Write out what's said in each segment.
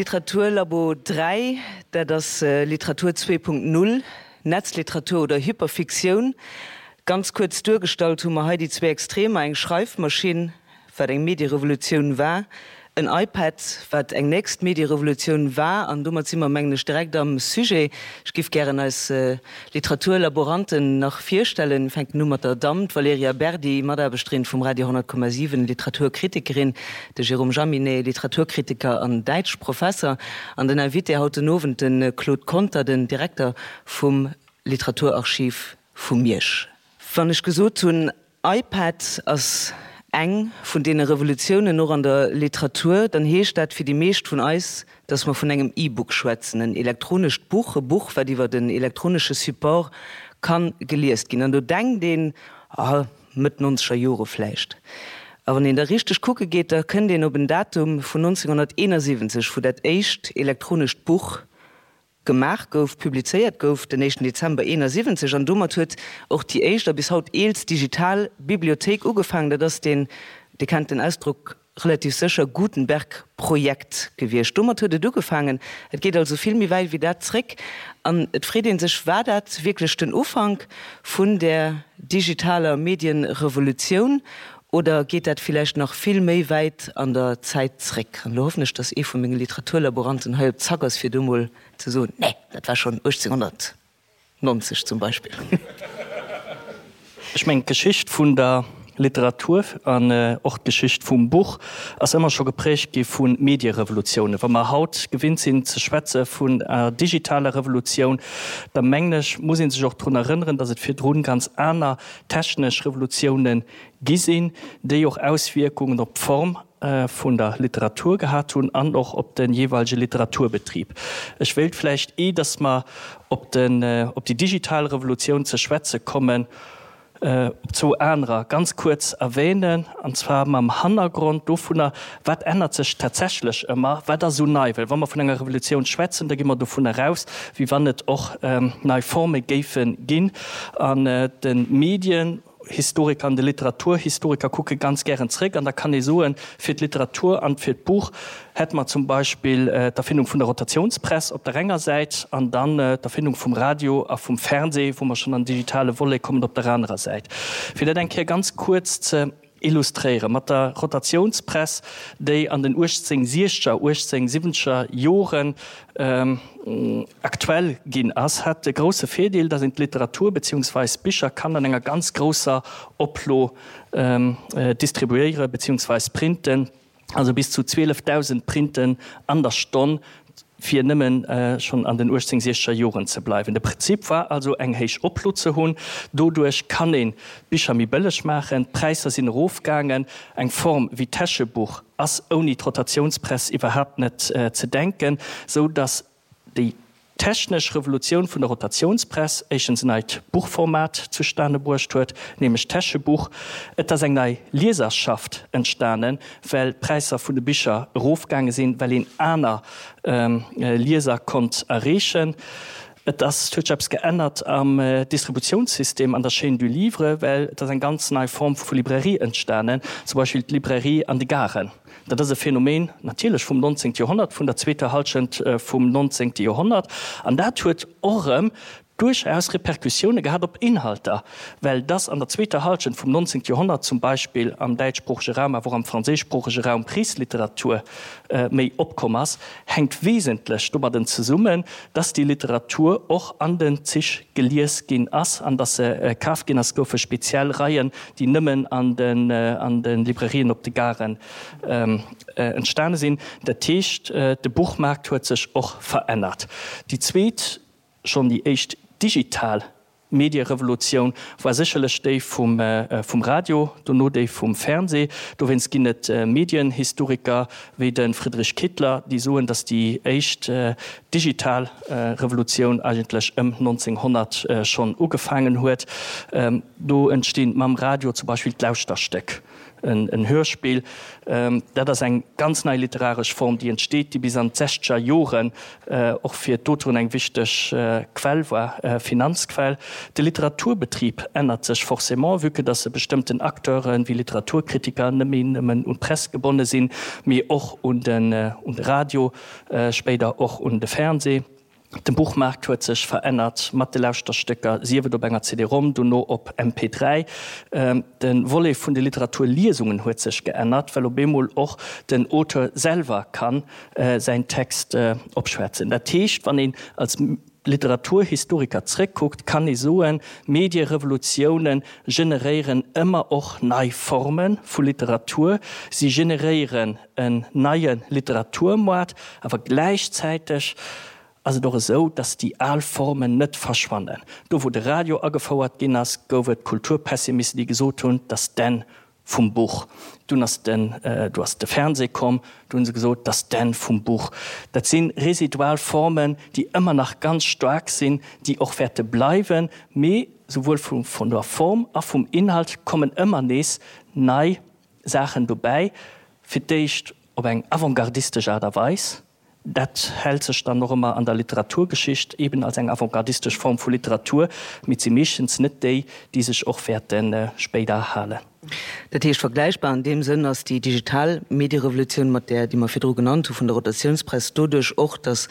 Literaturlabo 3, dat ass Literatur 2.0, Netzliteratur oder Hyperfiktioun. Ganz kuerz duergestallt hu mer hei déi zwee Extremer, eng Schreifmaschinn, wat eng Medierevolutioun war, en iPad, wat eng nächst Medierevolutioun war. An domat si mer, mengen ech, direkt am Sujet. Ech giff gären eis Literaturlaboranten nach virstellen. Fänken u mat der Damm, d'Valerija Berdi, Mataarbechterin vum Radio 100,7, Literaturkritikerin, de Jérôme Jaminet, Literaturkritiker an Däitschprofesser, an den Invité haut den Owend, de Claude Conter, den Direkter vum Literaturarchiv vu Miersch. Wann ech gesot hunn, iPad ass eng vun deene Revolutiounen och an der Literatur, dann heescht dat fir déi meescht vun eis, dass mer vun engem E-Book schwätzen, en elektronescht Buch, e Buch, wat iwwert en elektronesche Support ka geliest ginn. An do denkt een, ah, Mëtt nonzeger Jore vläicht. A wann een da richteg kucke geet, da kënnt een op en Datum vun 1971, wou dat éischt elektronescht Buch gemaach gouf, publizéiert gouf, den éischten Dezember 71. An domat huet och déi éischt a bis haut eelst digital Bibliothéik ugefaangen. Dat ass deen, Dir kennt den Ausdrock relativ sécher, Gutenberg-Projekt gewiescht. Domat huet et ugefaangen. Et geet also vill méi wäit wéi dat zréck. An et freet ee sech, War dat wierklech den Ufank vun där digitaler Medienrevolutioun oder geet dat villäicht nach vill méi wäit an der Zäit zréck? An elo hoffen ech, dass ee vu menge Literaturlaboranten hei op Zack ass, fir do mol ze soen, Nee, dat war schonn 1890 zum Beispill. Ech mengen, d'Geschicht vun der Literatur an och d'Geschicht vum Buch ass ëmmer scho geprägt gi vu Medierevolutiounen. Wa mer haut gewinnt sinn ze schwätze vun enger digitaler Revolutioun, da mengen ech, muss ee sech och drun erënneren, datt et virdrun ganz aner technesch Revolutiounen gi sinn, déi och Auswierkungen op d'Form vun der Literatur gehat hunn an och op de jeeweilege Literaturbetrib. Ech wéilt vläicht, eh datt mer op den, op déi digital Revolutioun ze schwätze kommen, op zwou anerer ganz kuerz erwähnen, an zwar mam Hannergrond dovunner, Wat ännert sech tatsächlech ëmmer, wat ass esou nei? Well wa mer vun enger Revolutioun schwätzen, da gi mer dovunner aus, wéi wann et och nei Forme géife ginn an de Medien. Historiker an de Literaturhistoriker kucke ganz gären zréck an da kann ee soen, fir d'Literatur an fir d'Buch hätte mer zum Beispill d'Erfindung vun der Rotationspress op der enger Säit an dann d'Erfindung vum Radio a vum Fernseh, wou mer schonn an den digitale Volet kommen, op der anerer Säit. Fir dat eng Kéier ganz kuerz ze illustréieren, mat der Rotationspress, déi an den 1860er, 1870er Joren aktuell ginn ass, hat de grousse Virdeel, datt een d'Literatur beziehungsweis Bicher kann an enger ganz grousser Oplo distribuéiere beziehungsweis printen, also bis zu 12.000 Printen an der Stonn, fir nëmmen schonn an den 1860er Joren ze bleiwen. De Prinzip war also eng héich Oplo ze hunn. Doduerch kann een d'Bicher méi bëlleg maachen, d'Präisser sinn erofgaangen. Eng Form wéi d'Täschebuch ass ouni d'Rotatiounspress iwwerhaapt net ze denken, sou datt déi technesch Revolutioun vun der Rotatiounspress éischtens en neit Buchformat zustane bruecht huet, nämlech d'Täschebuch. Et ass eng nei Lieserschaft entstanen, well d'Präisser vun de Bicher erofgaange sinn, well een aner Lieser konnt erreechen. Et ass, et huet sech eppes geännert am Distributiounssystem, an der Chaîne du livre, well et ass eng ganz nei Form vu Librairie entstanen, zum Beispill d'Librairie an de Garen. Dat ass e Phänomen natierlech vum 19. Joerhonnert, vun der zweeter Hallschent vum 19. Joerhonnert. An dat huet och erëm duerchaus Repercussioune gehat op Inhalter, well dass an der zweeter Hallschent vum 19. Joerhonnert zum Beispill am däitschsproochege Raum, awer och am franséischsproochege Raum Krichsliteratur méi opkomm ass, hänkt wesentlech domadden zesummen, dass déi Literatur och an den Zich gelies ginn ass an dass se kaf ginn ass. Et goufe speziell Reien, déi nëmmen an de Librairien op de Garen entstane sinn. Dat heescht, de Buchmaart huet sech och verännert. Déi zweet, schonn déi éischt digital Medierevolutioun war sécherlech déi vum Radio, dono déi vum Fernseh. Dowéinst ginn et Medienhistoriker wéi de Friedrich Kittler, déi soen, datt déi éischt digital Revolutioun eigentlech ëm 1900 schonn ugefaangen huet. Do entstinn mam Radio zum Beispill d'Lauschterstéck. En Hörspill, dat ass eng ganz nei literaresch Form, déi entsteet, déi bis an d'sechzeger Joren och fir d'Auteuren eng wichteg Quell war, Finanzquell. De Literaturbetrib ännert sech forcément, vue que dass e bestëmmten Acteuren, wéi Literaturkritiker, net méi nëmmen un d'Press gebonne sinn, mee och un de Radio, spéider och un de Fernseh. De Buchmaart huet sech verännert mat de Lauschterstécker, sief et op enger CD-Rom, dono op MP3. De Volet vun de Literaturliesungen huet sech geännert, well op eemol och den Auteur selwer ka säin Text opschwätzen. Dat heescht, wann een als Literaturhistoriker zréckkuckt, kann ee soen, Medierevolutiounen generéieren ëmmer och nei Forme vu Literatur. Si generéieren en neie Literaturmoart, awer gläichzäiteg ass et och esou, datt déi al Formen net verschwannen. Do wou de Radio agefouert ginn ass, gouf et Kulturpessimisten, déi gesot hunn, datt d'Enn vum Buch. Dunn ass den, du ass de Fernseh komm, du hunn se gesot, datt d'Enn vum Buch. Dat si residual Formen, déi ëmmer nach ganz staark sinn, déi och wäerte bleiwen, mee souwuel vun der Form a vum Inhalt kommen ëmmer nees nei Saachen dobäi, fir d'éischt op eng avantgardistesch Aart a Weis, dat hält sech dann och ëmmer an der Literaturgeschicht eben als eng avantgardistesch Form vu Literatur, mee et si meeschtens net déi, déi sech och wäerte spéider halen. Dat heescht, vergläichbar an deem Sënn ass déi digital Medierevolutioun mat där, déi mer virdru genannt hu vun der Rotatiounspress, doduerch och, datt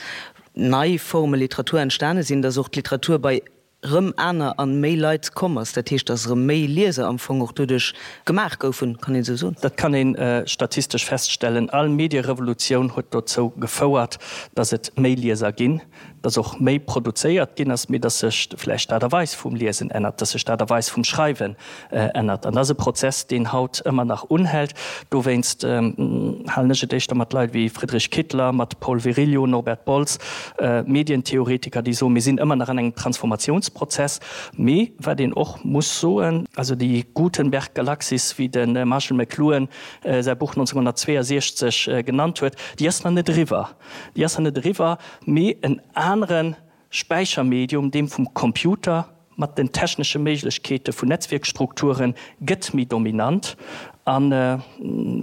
nei Forme Literatur entstane sinn, datt och d'Literatur bei rëm aner an méi Leit komm ass, dat heescht, dass erëm méi Lieser am Fong och doduerch gemaach goufen, kann een esou soen? Dat kann ee statistesch feststellen. All Medierevolutioun huet dozou gefouert, dass et méi Lieser ginn, dass och méi produzéiert ginn ass, mee dass sech vläicht d'Aart a Weis vum Liesen ännert, dass sech d'Aart a Weis vum Schreiwen ännert. An dat ass e Prozess, deen haut ëmmer nach unhält. Dowéinst halen ech et éischter mat Leit wéi Friedrich Kittler, mat Paul Virilio, Norbert Bolz, Medientheoretiker, déi soen, mir sinn ëmmer nach an engem Transformatiounsprozess. Mee wat een och muss soen, also déi Gutenberg-Galaxis, wéi de Marshall McLuhan säi Buch 1962 genannt huet, déi ass nach net eriwwer. Déi ass nach net eriwwer, mee en anere Späichermedium, deem vum Computer, mat den technesche Méiglechkeete vun Netzwierkstrukture gëtt méi dominant. An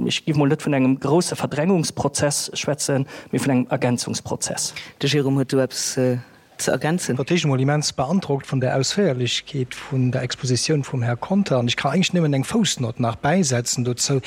ech géif mol net vun engem grousse Verdrängungsprozess schwätzen, mee vun engem Ergänzungsprozess. De Jérôme huet do eppes ze ergänzen. Fir d'éischt emol immens beandrockt vun der Ausféierlechkeet vun der Expositioun vum Här Conter. An ech ka eigentlech nëmmen eng Foussnott nach bäisetzen dozou.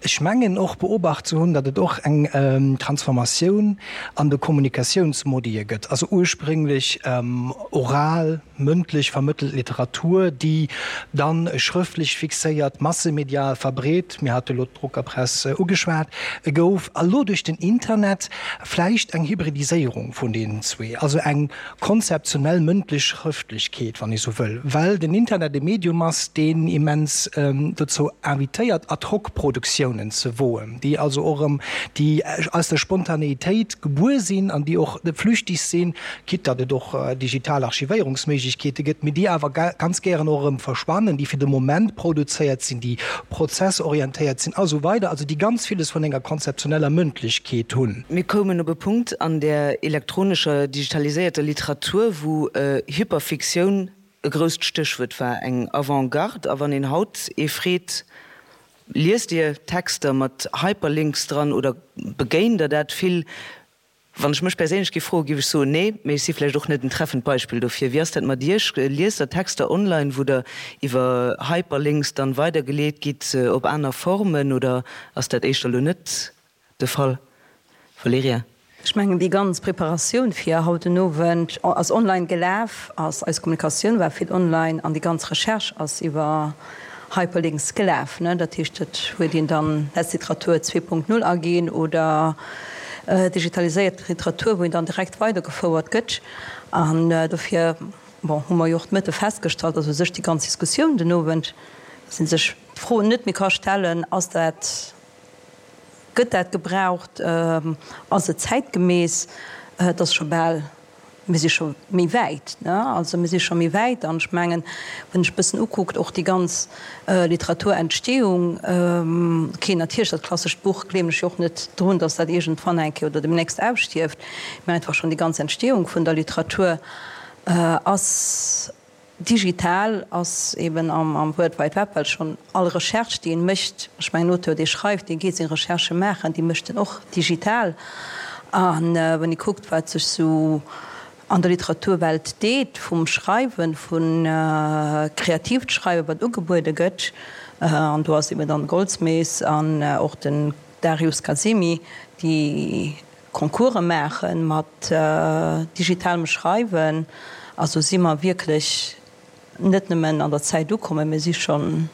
Ech mengen och beobacht ze hunn, datt et och eng Transformatioun an de Kommunikatiounsmodie gëtt, also ursprénglech oral, mëndlech vermëttelt Literatur, déi dann schrëftlech fixéiert, massemedial verbreet, mir hate lo d'Druckerpress ugeschwat, gouf, a lo duerch den Internet vläicht eng Hybridiséierung vun deenen zwee, also eng konzeptionell mëndlech Schrëftlechkeet, wann ee sou wëll, well den Internet e Medium ass, deen immens dozou invitéiert, Ad-hoc-Produktiounen ze woen, déi also och erëm, déi aus der Spontaneïtéit gebuer sinn an déi och flüchtig sinn, quitte datt et och digital Archivéierungsméiglechkeete gëtt, mee déi awer ganz gären och erëm verschwannen, déi fir de Moment produzéiert sinn, déi prozessorientéiert sinn a sou weider, also déi ganz villes vun enger konzeptioneller Mëndlechkeet hunn. Mir koumen op e Punkt an der elektronescher, digitaliséierter Literatur, wou Hyperfiktioun e grousst Stéchwuert war, eng Avant-garde. A wann een haut ee freet, Liest Dir Texter mat Hyperlinks dran oder begéint Der dat vill? Wann ech mech perséinlech géif froen, géif ech soen, nee. Mee ech si vläicht och net en treffend Beispill dofir. Wéi ass dat mat Iech? Liest Der Texter online, wou Der iwwer Hyperlinks dann weidergeleet gitt op aner Formen oder ass dat éischter elo net de Fall, Valerija? Ech mengen, déi ganz Preparatioun fir haut den Owend ass online gelaf, ass eis Kommunikatioun war vill online an déi ganz Recherche ass iwwer Hyperlinks gelaf. Dat heescht, et huet een dann Netzliteratur 2.0 aginn oder digitaliséiert Literatur, wou een dann direkt weidergefouert gëtt. An dofir, bon, hu mer jo och de Mëtte festgestallt, dass u sech déi ganz Diskussioun den Owend, dass ee sech d'Fro net méi ka stellen, Ass dat, Gëtt dat gebraucht? Ass et zäitgemäss? Et ass scho bal, mir si scho méi wäit, ne? Also mir si scho méi wäit an ech mengen, wann ech e bëssen ukuckt, och déi ganz Literaturentstehung, okay, natierlech dat klassescht Buch gleewen ech jo och net drun, datt dat iergendwann eng Kéier oder demnächst ausstierft, mä einfach schonn déi ganz Entstehung vun der Literatur ass, Digital ass eben am World Wide Web, well schonn all Recherche, déi een mécht, ech mengen, en Auteur, dee schreift, dee geet seng Recherchë maachen, déi mécht en och digital. A wann ee kuckt, wat sech sou. an der Literaturwelt deet, vum Schreiwen, vu kreatiivt Schreiwen, wat ugebuede gëtt, an do ass eben dann Goldsmiths an och den Darius Kazemi, déi Concourse maache mat digitalem Schreiwen. Also si mer wierklech net nëmmen an der Zäit ukommen, mir si schonn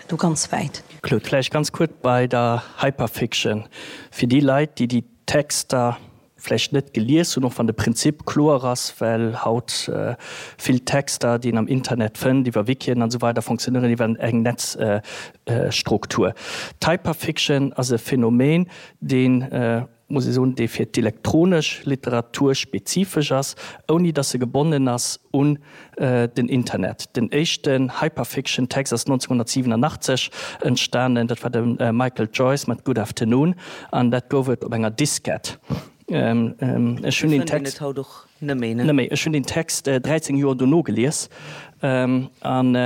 do ganz wäit. Claude, vläicht ganz kuerz bei der Hyperfiction, fir déi Leit, déi déi Texter vläicht net gelies hunn, och wann de Prinzip kloer ass, well haut vill Texter, déi een am Internet fënnt, iwwer Wikien an esou weider, fonctionnéieren iwwer eng Netzstruktur. D'Hyperfiction ass e Phänomen, deen, muss ee soen, dee fir d'elektronesch Literatur spezifesch ass, ouni datt se gebonnen ass un den Internet. Den éischten Hyperfiction-Text ass 1987 entstanen, dat war de Michael Joyce mat Good Afternoon an dat gouf et op enger Diskett. Ech hunn deen Text Ech hunn deen Text 13 Joer dono gelies an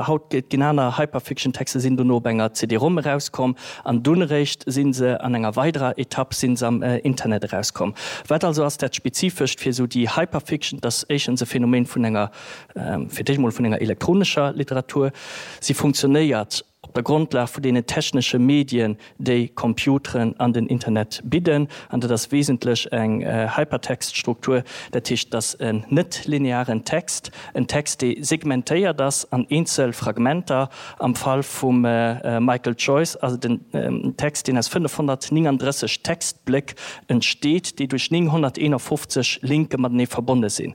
haut ginn aner Hyperfiction-Texter sinn dono op enger CD-Rom erauskomm an dunn eréischt si se an enger weiderer Etapp si se am Internet erauskomm. Wat also ass dat Spezifescht fir esou déi Hyperfiction? Et ass éischtens e Phänomen vun enger, fir d'éischt emol vun enger elektronescher Literatur. Si funktionéiert op der Grondlag vun deenen technesche Medien, déi Computeren an den Internet bidden. An dat ass wesentlech eng Hypertext-Struktur, dat heescht, et ass en net-linearen Text, en Text, dee segmentéiert ass an eenzel Fragmenter. Am Fall vum Michael Joyce ass et en Text, deen aus 539 Textbléck entsteet, déi duerch 951 Linke matenee verbonne sinn.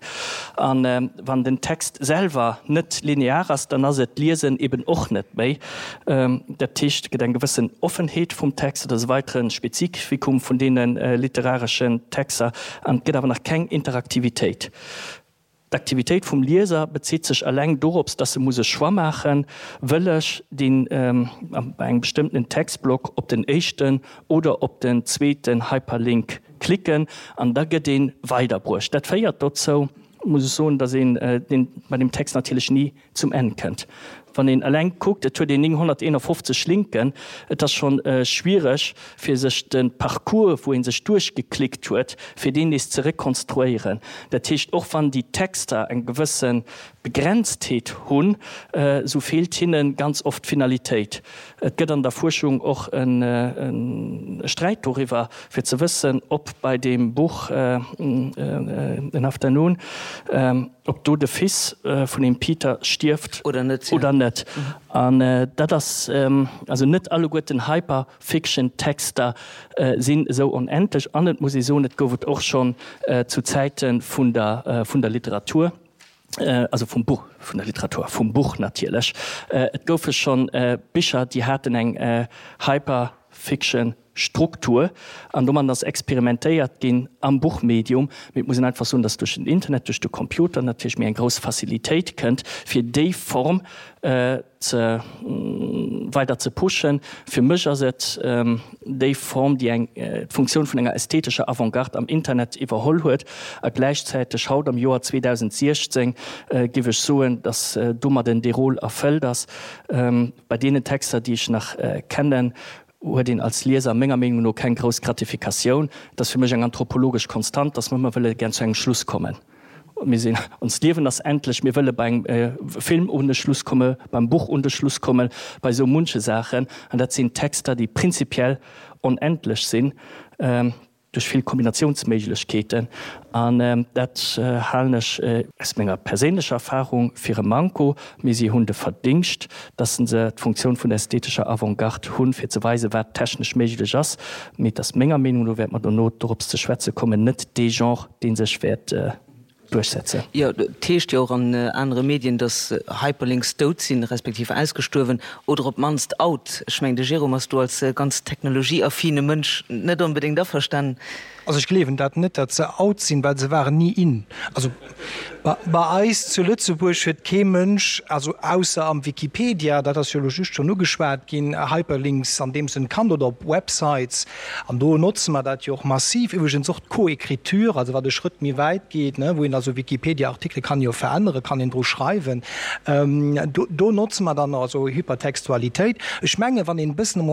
A wann den Text selwer net linear ass, dann ass et d'Liesen eben och net méi. Dat heescht, et gëtt eng gewëssen Offenheet vum Text, dat ass e weitere Spezifikum vun deene literareschen Texter, an et gëtt awer nach keng Interaktivitéit. D'Aktivitéit vum Lieser bezitt sech eleng dorops, dass e muss e Choix maachen, Wëll ech deen, bei engem bestëmmtenen Textblock op den éischten oder op den zweeten Hyperlink klicken? An da gëtt ee weiderbruecht. Dat féiert dozou, muss ech soen, dass een deen bei deem Text natierlech ni zum Enn kënnt. Wann een eleng kuckt, et huet een 951 Linken, et ass schonn schwiereg fir sech de Parcours, wou ee sech duerchgeklickt huet, fir deen nees ze rekonstruéieren. Dat heescht, och wann déi Texter eng gewësse Begrenztheet hunn, esou feelt hinne ganz oft d'Finalitéit. Et gëtt an der Fuerschung och e Sträit doriwwer, fir ze wëssen, ob bei deem Buch An Afternoon, ob do de Fils vun dem Peter stierft oder net. Oder net. An dat ass, also net alleguerten Hyperfiction-Texter sinn esou onendlech. An et muss ee soen, et gouf et och schonn zu Zäite vun der, vun der Literatur, also vum Buch, vun der Literatur, vum Buch natierlech, et goufe schonn Bicher, déi haten eng Hyperfiction. Struktur an domat ass experimentéiert ginn am Buchmedium. Mee et muss een einfach soen, dass duerch den Internet, duerch de Computer natierlech méi eng grouss Facilitéit kënnt, fir déi Form ze weider ze pushen. Fir mech ass et déi Form, déi eng d'Funktioun vun enger ästhetescher Avantgarde am Internet iwwerholl huet a gläichzäiteg haut am Joer 2016 géif ech soen, dass domadden dee Rôle erfëllt ass. Bei deenen Texter, déi ech nach kennen, huet een als Lieser menger Meenung no keng grouss Gratifikatioun. Et ass fir mech eng anthropologesch Konstant, dass mer ëmmer wëlle gär zu engem Schluss kommen. Mir sinn, onst Liewen ass endlech, mir wëlle bei engem Film un de Schluss komme, beim Buch un de Schluss kommen, bei esou munche Saachen. An dat sinn Texter, déi prinzipiell onendlech sinn. Duerch vill Kombinatiounsméiglechkeeten, an dat halen ech aus menger perséinlecher Erfahrung fir e Manko, mee si hunn de Verdingscht, dass se d'Funktioun vun der ästhetescher Avantgarde hunn, fir ze weisen, wat technesch méiglech ass. Mee et ass menger Meenung no, wäerte mer dono dorops ze schwätze kommen, net dee Genre, dee sech wäert duerchsetzen. Jo, et heescht jo och an anere Medien, datt Hyperlinks dout sinn, respektiv ausgestuerwen oder op d'mannst out. Ech mengen, de Jérôme ass do als ganz technologieaffine Mënsch net onbedéngt averstanen. Also ech gleewen dat net, datt se out sinn, well se waren ni in. Also bei eis zu Lëtzebuerg huet kee Mënsch, also ausser am Wikipedia, dat ass jo elo just schonn ugeschwat ginn, Hyperlinks an deem Sënn kannt oder op Websites. An do notze mer dat jo och massiv. Iwwregens och d'Coécriture, also wat e Schrëtt méi wäit geet, wou een also Wikipedia-Artikele kann jo veränneren, kann een dru schreiwen. Do notze mer dann also Hypertextualitéit. Ech mengen, wann een e bëssen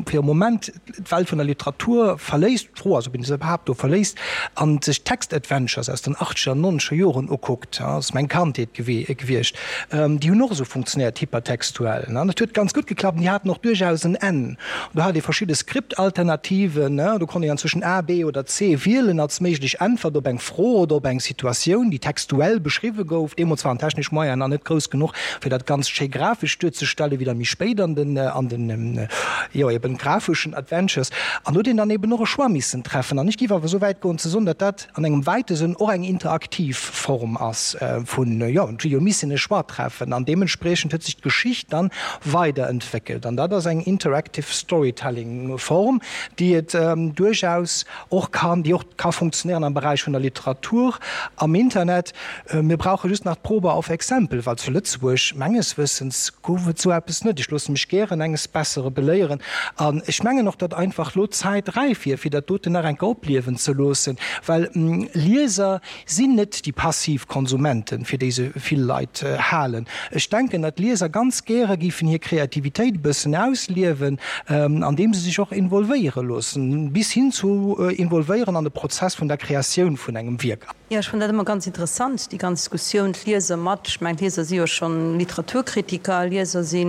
fir e Moment d'Welt vun der Literatur verléisst, d'Fro ass, ob een se. iwwerhaapt do verléisst an sech d'Text-Adventures aus den achtzeger an nonzeger Joren ukuckt, ass meng Kandheet gewiescht, déi hunn och esou funktionéiert, hypertextuell. Dat huet ganz gutt geklappt an déi haten och duerchaus en Enn. Do hat ee verschidde Skriptalternativen, do konnt een dann zwëschen A, B oder C wielen als méiglech Äntwert op eng Fro oder op eng Situatioun, déi textuell beschriwwe gouf. Deemools waren d'technesch Moyenen nach net grouss genuch, fir dat Ganzt schéi grafesch duerzestellen, wéi dann méi spéit an den, an den, jo eben grafeschen Adventures. An do huet een dann eben och e Choix missen treffen. An ech géif awer esou wäit goen ze soen, datt dat an engem wäite Sënn och eng interaktiv Form ass vun, jo, et huet jo missen e Choix treffen an deementspriechend huet sech d'Geschicht dann weiderentwéckelt. An dat ass eng interactive storytelling Form, déi et duerchaus och kann, déi och ka funktionéieren am Beräich vun der Literatur am Internet. Mir brauche just nach d'Probe auf Exempel, well zu Lëtzebuerg, menges Wëssens, gouf et esou eppes net. Ech loosse mech gären enges Bessere beléieren. An ech mengen och, datt einfach elo d'Zäit räif wier, fir dat doten nach eng Kéier opliewen ze loossen, well Lieser sinn net déi passiv Konsumenten, fir déi se vill Leit halen. Ech denken, datt Lieser ganz gäre géifen hir Kreativitéit e bëssen ausliewen, andeem se sech och involvéiere loossen, bis hin zu involvéieren an de Prozess vun der Kreatioun vun engem Wierk. Jo, ech fannen dat ëmmer ganz interessant, déi ganz Diskussioun, d'Lieser mat, ech mengen d'Lieser si jo schonn Literaturkritiker, Lieser si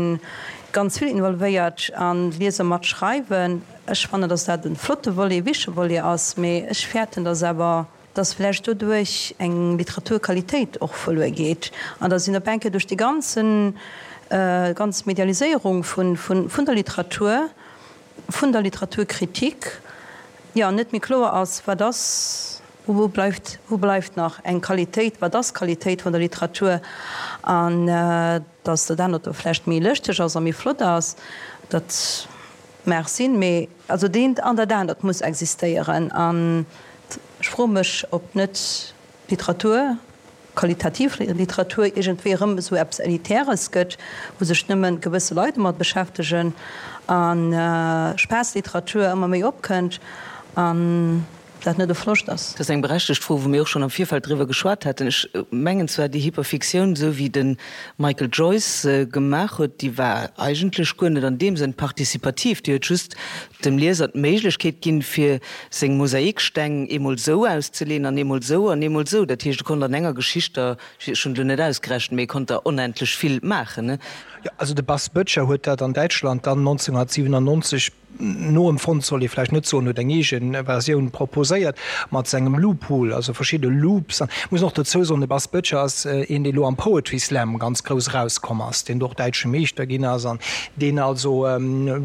ganz vill involvéiert an d'Lieser mat schreiwen. Ech fannen, datt dat e flotte Volet, e wichtege Volet ass, mee ech fäerten, datt awer, datt vläicht doduerch eng Literaturqualitéit och verluer geet an datt een op eng Kéier duerch déi ganzen, ganz Medialiséierung vun, vun der Literatur, vun der Literaturkritik, jo, net méi kloer ass, wat ass Wou bleift, wou bleift nach eng Qualitéit, wat ass d'Qualitéit vun der Literatur? An datt dat anert do vläicht méi lëschteg ass a méi flott ass, dat mag sinn, mee also deent an dat anert muss existéieren. An ech froe mech, ob net d'Literatur, qualitativ Literatur, iergendwéi erëm esou eppes Elitäres gëtt, wou sech nëmme gewësse Leit domat beschäftegen a Spaass-Literatur ëmmer méi opkënnt. An dat net e Verloscht ass. Dat ass eng berechtegt Fro, wou mir och schonn am Virfeld driwwer geschwat haten. Ech mengen zwar, déi Hyperfiktioun, esou wéi de Michael Joyce se gemaach huet, déi war eigentlech guer net an deem Sënn participativ. Déi huet just dem Lieser d'Méiglechkeet ginn, fir seng Mosaiksteng eemol esou auszeleeën an eemol esou an eemol esou. Dat heescht, e konnt an enger Geschicht der, ech hunn et elo net ausgerechent, mee e konnt der onendlech vill maachen. Jo, also de Bas Böttcher huet dat an Däitschland dann 1997, Noempfonnt soll ee vläicht net soen, huet eng eege Versioun proposéiert mat sengem Loophole, also verschidde Loops. An ech muss och dozou soen, de Bas Böttcher ass een, dee lo am Poetry Slam ganz grouss erauskomm ass, deen do och däitsche Meeschter ginn ass an deen also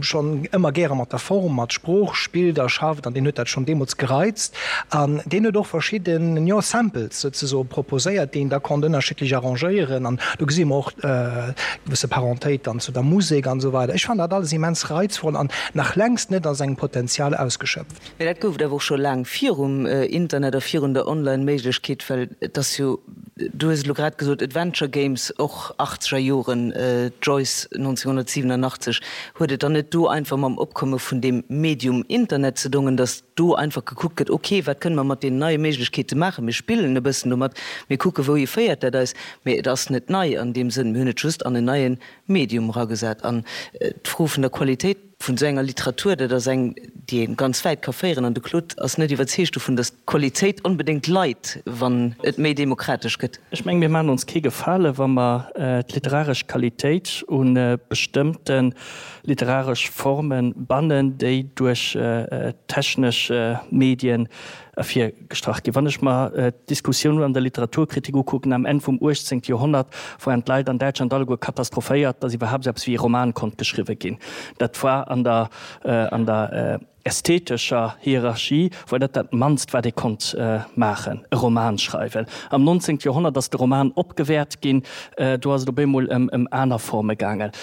schonn ëmmer gäre mat der Form, mat Sprooch spillt a schafft an deen huet dat schonn deemools gereizt. An deen huet och verschidden, jo, Samples souzesoe proposéiert, déi een da konnt ënnerschiddlech arrangéieren. An do gesi mer och gewësse Parentéit dann zu der Musek an esou weider. Ech fannen dat alles immens reizvoll an nach längst net a sengem Potenzial ausgeschöpft. Mee dat gouf et awer och scho laang virum Internet a virun der Online-Méiglechkeet, well et ass jo, du hues et elo grad gesot, Adventure Games, och achtzeger Joren, Joyce 1987, huet et dann net do einfach mam Opkomme vun deem Medium Internet ze dongen, datt do einfach gekuckt gëtt, ok, wat kënne mer mat deenen neie Méiglechkeete maachen, mir spillen e bëssen domat, mir kucke wouhi féiert dat eis, mee et ass net nei an deem Sënn, mir hunn et just an en neie Medium eragesat. An d'Fro vun der Qualitéit vun esou enger Literatur, dat ass eng, déi ee ganz wäit ka féieren. An de Claude ass net iwwerzeegt dovun, datt d'Qualitéit onbedéngt leit, wann et méi demokratesch gëtt. Ech mengen, mir maachen ons kee Gefale wa mer d'literaresch Qualitéit u bestëmmte literaresch Forme bannen, déi duerch technesch Medien ervirgestrach ginn. Wann ech mer d'Diskussioun an der Literaturkritik ukucken am Enn vum 18. Joerhonnert, waren d'Leit an Däitschland alleguer katastrophéiert, datt iwwerhaapt esou eppes wéi e Roman konnt geschriwwe ginn. Dat war an der, an der ästhetescher Hierarchie war dat dat mannst, wat ee konnt maachen, e Roman schreiwen. Am 19. Joerhonnert ass de Roman opgewäert ginn, do ass et op eemol ëm ëm aner Forme gaangen.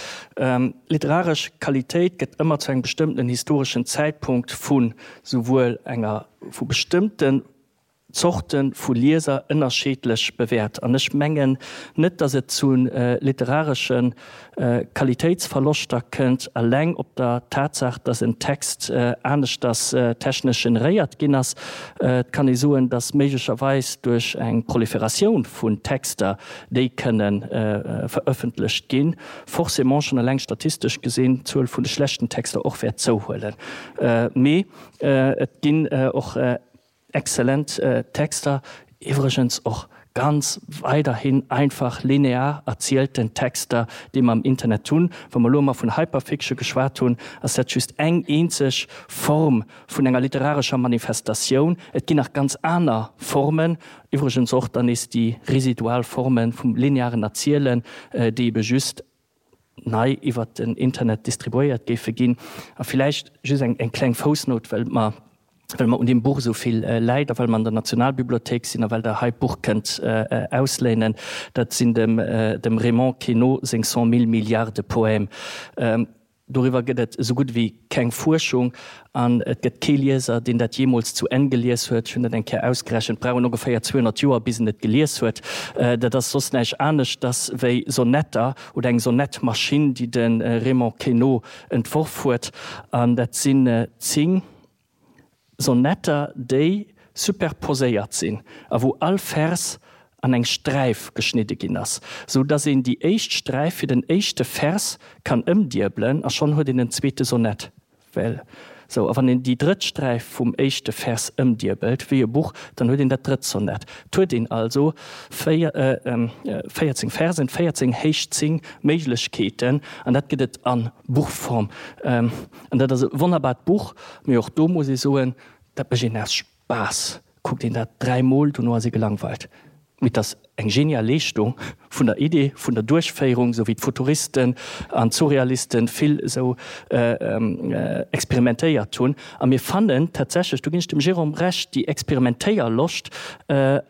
Literaresch Qualitéit gëtt ëmmer zu engem bestëmmtenen historeschen Zäitpunkt vu souwuel enger vu bestëmmten Zorte vu Lieser ënnerscheedlech bewäert. An ech mengen net, datt et zu literaresche Qualitéitsverloschter kënnt, eleng op der Tatsaach, datt en Text aneschters technesch generéiert ginn ass. Et kann ee soen, datt méiglecherweis duerch eng Proliferatioun vun Texter, déi kënne verëffentlecht ginn, forcément schonn eleng statistesch gesinn d'Zuel vun de schlechten Texter och wäert zouhuelen. Mee et ginn och. Exzellent Texter, iwwregens och ganz weiderhin einfach linear erzielten Texter, déi mer am Internet hunn. Wa mer elo emmer vun Hyperfiction geschwat hunn, ass dat just eng eenzeg Form vun enger literarescher Manifestatioun. Et ginn nach ganz aner Formen, iwwregens och dann nees déi residual Forme vum linearen Erzielen, déi ebe just nei iwwert den Internet distribuéiert géife ginn. A villäicht just eng kleng Foussnout, well mer, well mer un deem Buch esou vill läit a well mer an der Nationalbibliothéik sinn a well Der hei d'Buch kënnt ausléinen, dat sinn dem dem Raymond Queneau seng Cent mille milliards de poèmes. Doriwwer gëtt et esou gutt ewéi keng Fuerschung an et gëtt kee Lieser, deen dat jeemools zu Enn gelies huet. Ech hunn dat eng Kéier ausgerechent, brauch en ongeféier 200 Joer, bis en et gelies huet. Dat ass soss näischt aneschters wéi Sonetter oder eng Sonettmaschinn, déi de Raymond Queneau entworf huet. An dat sinn 10. Sonetter, déi superposéiert sinn a wou all Vers an eng Sträif geschnidde ginn ass, sou dass een déi éischt Sträif fir den éischte Vers kann ëmdiebelen a schonn huet een en zweete Sonett. Well sou. A wann een déi drëtt Sträif vum éischte Vers ëmdiebelt, wéi e Buch, dann huet een dat drëtt Sonett. Et huet een also 14 Versen, 14 héich 10 Méiglechkeeten an dat gëtt et a Buchform. An dat ass e wonnerbart Buch, mee och do muss ee soen, dat mécht een aus Spaass, kuckt een dat dräimol, dono ass ee gelangweilt. Mee et ass eng genial Leeschtung vun der Idee, vun der Duerchféierung, esou wéi d'Futuristen an d'Surrealisten vill esou experimentéiert hunn. A mir fannen tatsächlech, do ginn ech dem Jérôme Recht, déi Experimentéierloscht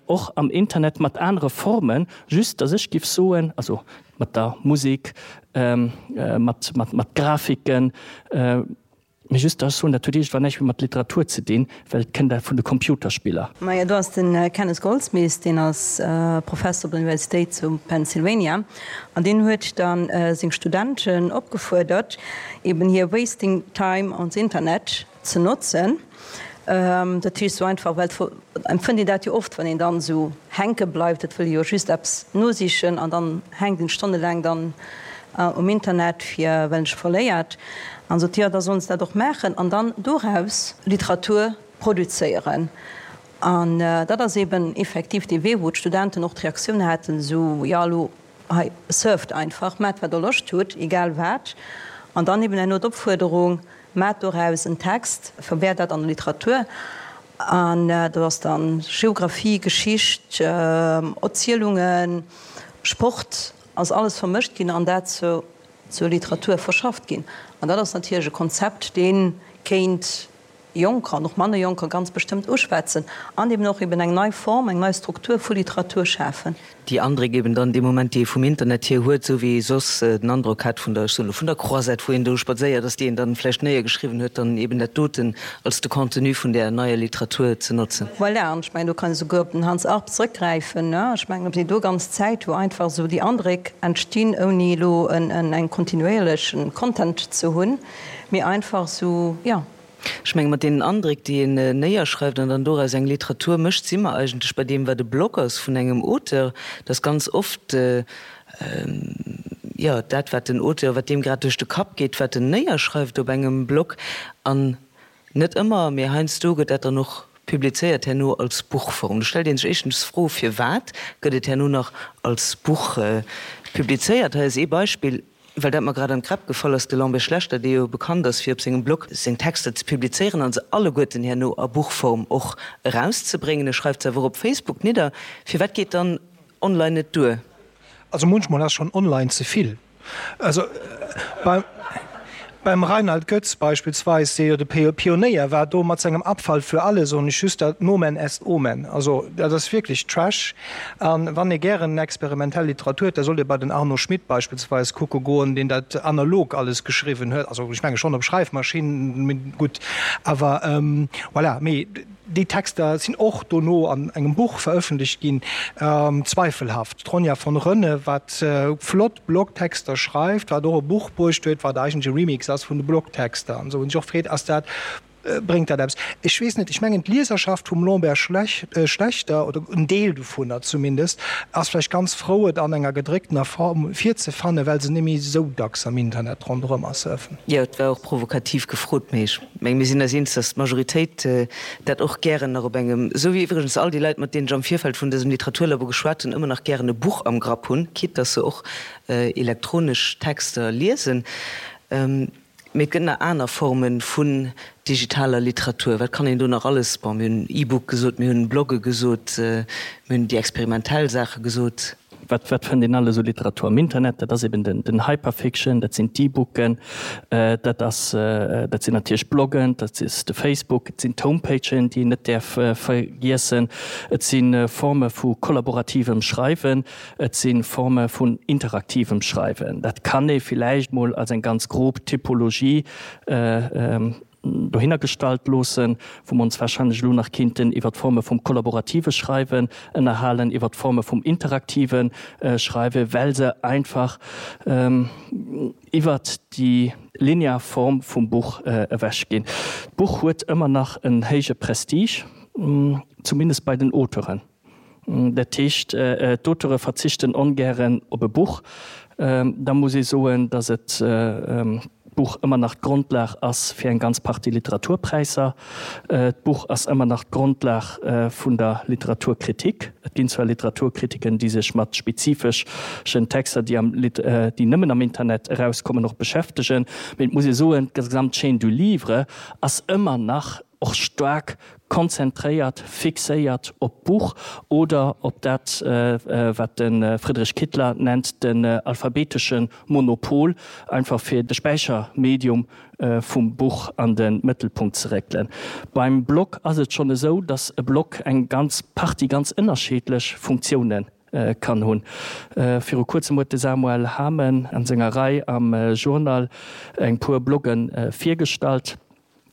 och am Internet mat anere Formen, just datt ech giff soen, also mat der Musik, mat, mat, mat Grafiken. Mee just, ech soen, dat huet iergendwann näischt méi mat Literatur ze dinn, well et kënnt vun de Computerspiller. Majo, do ass de Kenneth Goldsmith, deen ass Professer op der Universitéit zu Pennsylvania, an deen huet da seng Studenten opgefuerdert, eben hir wasting time on the internet ze notzen. Dat heescht sou einfach, well et empfënnt een dat jo oft, wann een dann esou hänke bleift, et wëll ee jo just eppes nosichen an dann hänkt een stonnelaang dann um Internet fir well een sech verléiert. An sot, jo da sollen se dat och maachen an dann doraus Literatur produzéieren. An dat ass eben effektiv dee Wee, wou d'Studenten och d'Reaktioun haten, esou, jo elo hei surft einfach, maacht wat der Loscht hutt, egal wat. An dann eben herno d'Opfuerderung, Maat doraus en Text, verwäert dat an der Literatur, an do ass dann Geographie, Geschicht, Erzielungen, Sport, ass alles vermëscht ginn an dat zur Literatur verschafft ginn. An dat ass natierlech e Konzept, dee kéint Jonker an och manner Jonker ganz bestëmmt uschwätzen an eben och eben eng nei Form, eng nei Struktur vu Literatur schafen. Déi Andréck eben dann dee Moment, déi ee vum Internet hier huet, esou wéi ee soss den Androck hat vun der, ech soen elo, vun der Croisette, wou een do spadséiert ass, déi een dann vläicht néiergeschriwwen huet, dann eben dat doten als de Contenu vun där neier Literatur ze notzen. Voilà, an ech mengen, do kann ee souguer op den Hans Arp zrëckgräifen, ne? Ech mengen, op déi do ganz Zäit, wou einfach esou déi Andréck entstinn, ouni elo en, en kontinuéierlechen Content ze hunn, mee einfach esou, jo. Ech menge mat deenen Andréck, déi een néierschreift an dann doraus eng Literatur mécht, si mer eigentlech bei deem, wat e Blog ass vun engem Auteur, dass ganz oft, jo, dat, wat den Auteur, wat deem grad duerch de Kapp geet, wat en néierschreift op engem Blog, an net ëmmer, mee heiansdo gëtt dat dann och publizéiert herno als Buchform. Do stellt ee sech éischtens d'Fro, firwat gëtt et herno nach als Buch publizéiert? Hei ass ee Beispill. Well dat mer grad an d'Gräpp gefall ass, de Lambert Schlechter, dee jo bekannt ass fir op sengem Blog seng Texter ze publizéieren an se alleguerten herno a Buchform och erauszebréngen, e schreift se awer och op Facebook nidder. Firwat geet dann online net duer? Also munchmol ass schonn online ze vill. Also beim Rainald Goetz beispillsweis, dee jo de Pionéier war do mat sengem Abfall für alle, soen ech just dat Nomen est Omen. Also dat ass wierklech Trash. A wann ee gären experimentell Literatur huet, da sollt ee bei den Arno Schmidt beispillsweis kucke goen, deen dat analog alles geschriwwen huet, also ech menge schonn op Schreifmaschinn, mee gutt, awer voilà. Mee déi Texter sinn och dono an engem Buch verëffentlecht ginn, zweifelhaft. D'Ronja von Rönne, wat flott Blogtexter schreift, wat och e Buch bruecht huet, wat eigentlech e Remix ass vun de Blogtexter an esou, wou een sech och freet, ass dat. Bréngt dat eppes? Ech weess net. Ech mengen, d'Lieserschaft vum Lambert Schlechter, oder en Deel dovunner zumindest, ass vläicht ganz frou, et an enger gedrécktener Form virzefannen, well se net méi esou dacks am Internet ronderëm surfen. Jo, et war och provokativ gefrot, mee ech mengen, mir sinn eis eens, datt d'Majoritéit dat och gären nach op engem, esou wéi iwwregens all déi Leit, mat deenen ech am Virfeld vun dësem Literaturlabo geschwat hunn, ëmmer nach gären e Buch am Grapp hunn, quitte datt se och elektronesch Texter liesen. Mee et gëtt nach aner Forme vun digitaler Literatur. Wat kann een do nach alles, bon, mir hunn E-Book gesot, mir hunn Blogge gesot, mir hunn déi experimentell Saache gesot. Wat, wat fënnt een alles u Literatur am Internet? Dat ass eben den, den Hyperfiction, dat sinn d'E-Booken, dat ass, dat sinn natierlech Bloggen, dat ass de Facebook, et sinn d'Homepagen, déi een net däerf vergiessen, et si Forme vu kollaborativem Schreiwen. Et si Forme vun interaktivem Schreiwen. Dat kann ee villäicht mol als eng ganz grob Typologie dohinner gestallt loossen, wou mer ons wahrscheinlech elo nach kinnten iwwer d'Forme vum kollaborative Schreiwen ënnerhalen, iwwer d'Forme vum interaktive Schreiwen, well se einfach iwwert déi linear Form vum Buch ewechginn. D'Buch huet ëmmer nach en héije Prestige, zumindest bei den Auteuren. Dat heescht, d'Auteure verzichten ongären op e Buch. Da muss ee soen, datt et d'Buch ëmmer nach d'Grondlag ass fir eng ganz Partie Literaturpräisser. D'Buch ass ëmmer nach d'Grondlag vun der Literaturkritik. Et ginn zwar Literaturkritiken, déi sech mat spezifeschen Texter, déi am déi nëmmen am Internet erauskommen, och beschäftegen, mee et muss ee soen, d'gesamt Chaîne du livre ass ëmmer nach och staark konzentréiert, fixéiert op d'Buch oder op dat, wat de Friedrich Kittler nennt den alphabetesche Monopol, einfach fir de Späichermedium vum Buch an de Mëttelpunkt ze réckelen. Beim Blog ass et schonn esou, datt e Blog eng ganz Partie ganz ënnerscheedlech Funktiounen kann hunn. Viru kuerzem huet de Samuel Hamen an senger Rei am Journal eng puer Blogge virgestallt.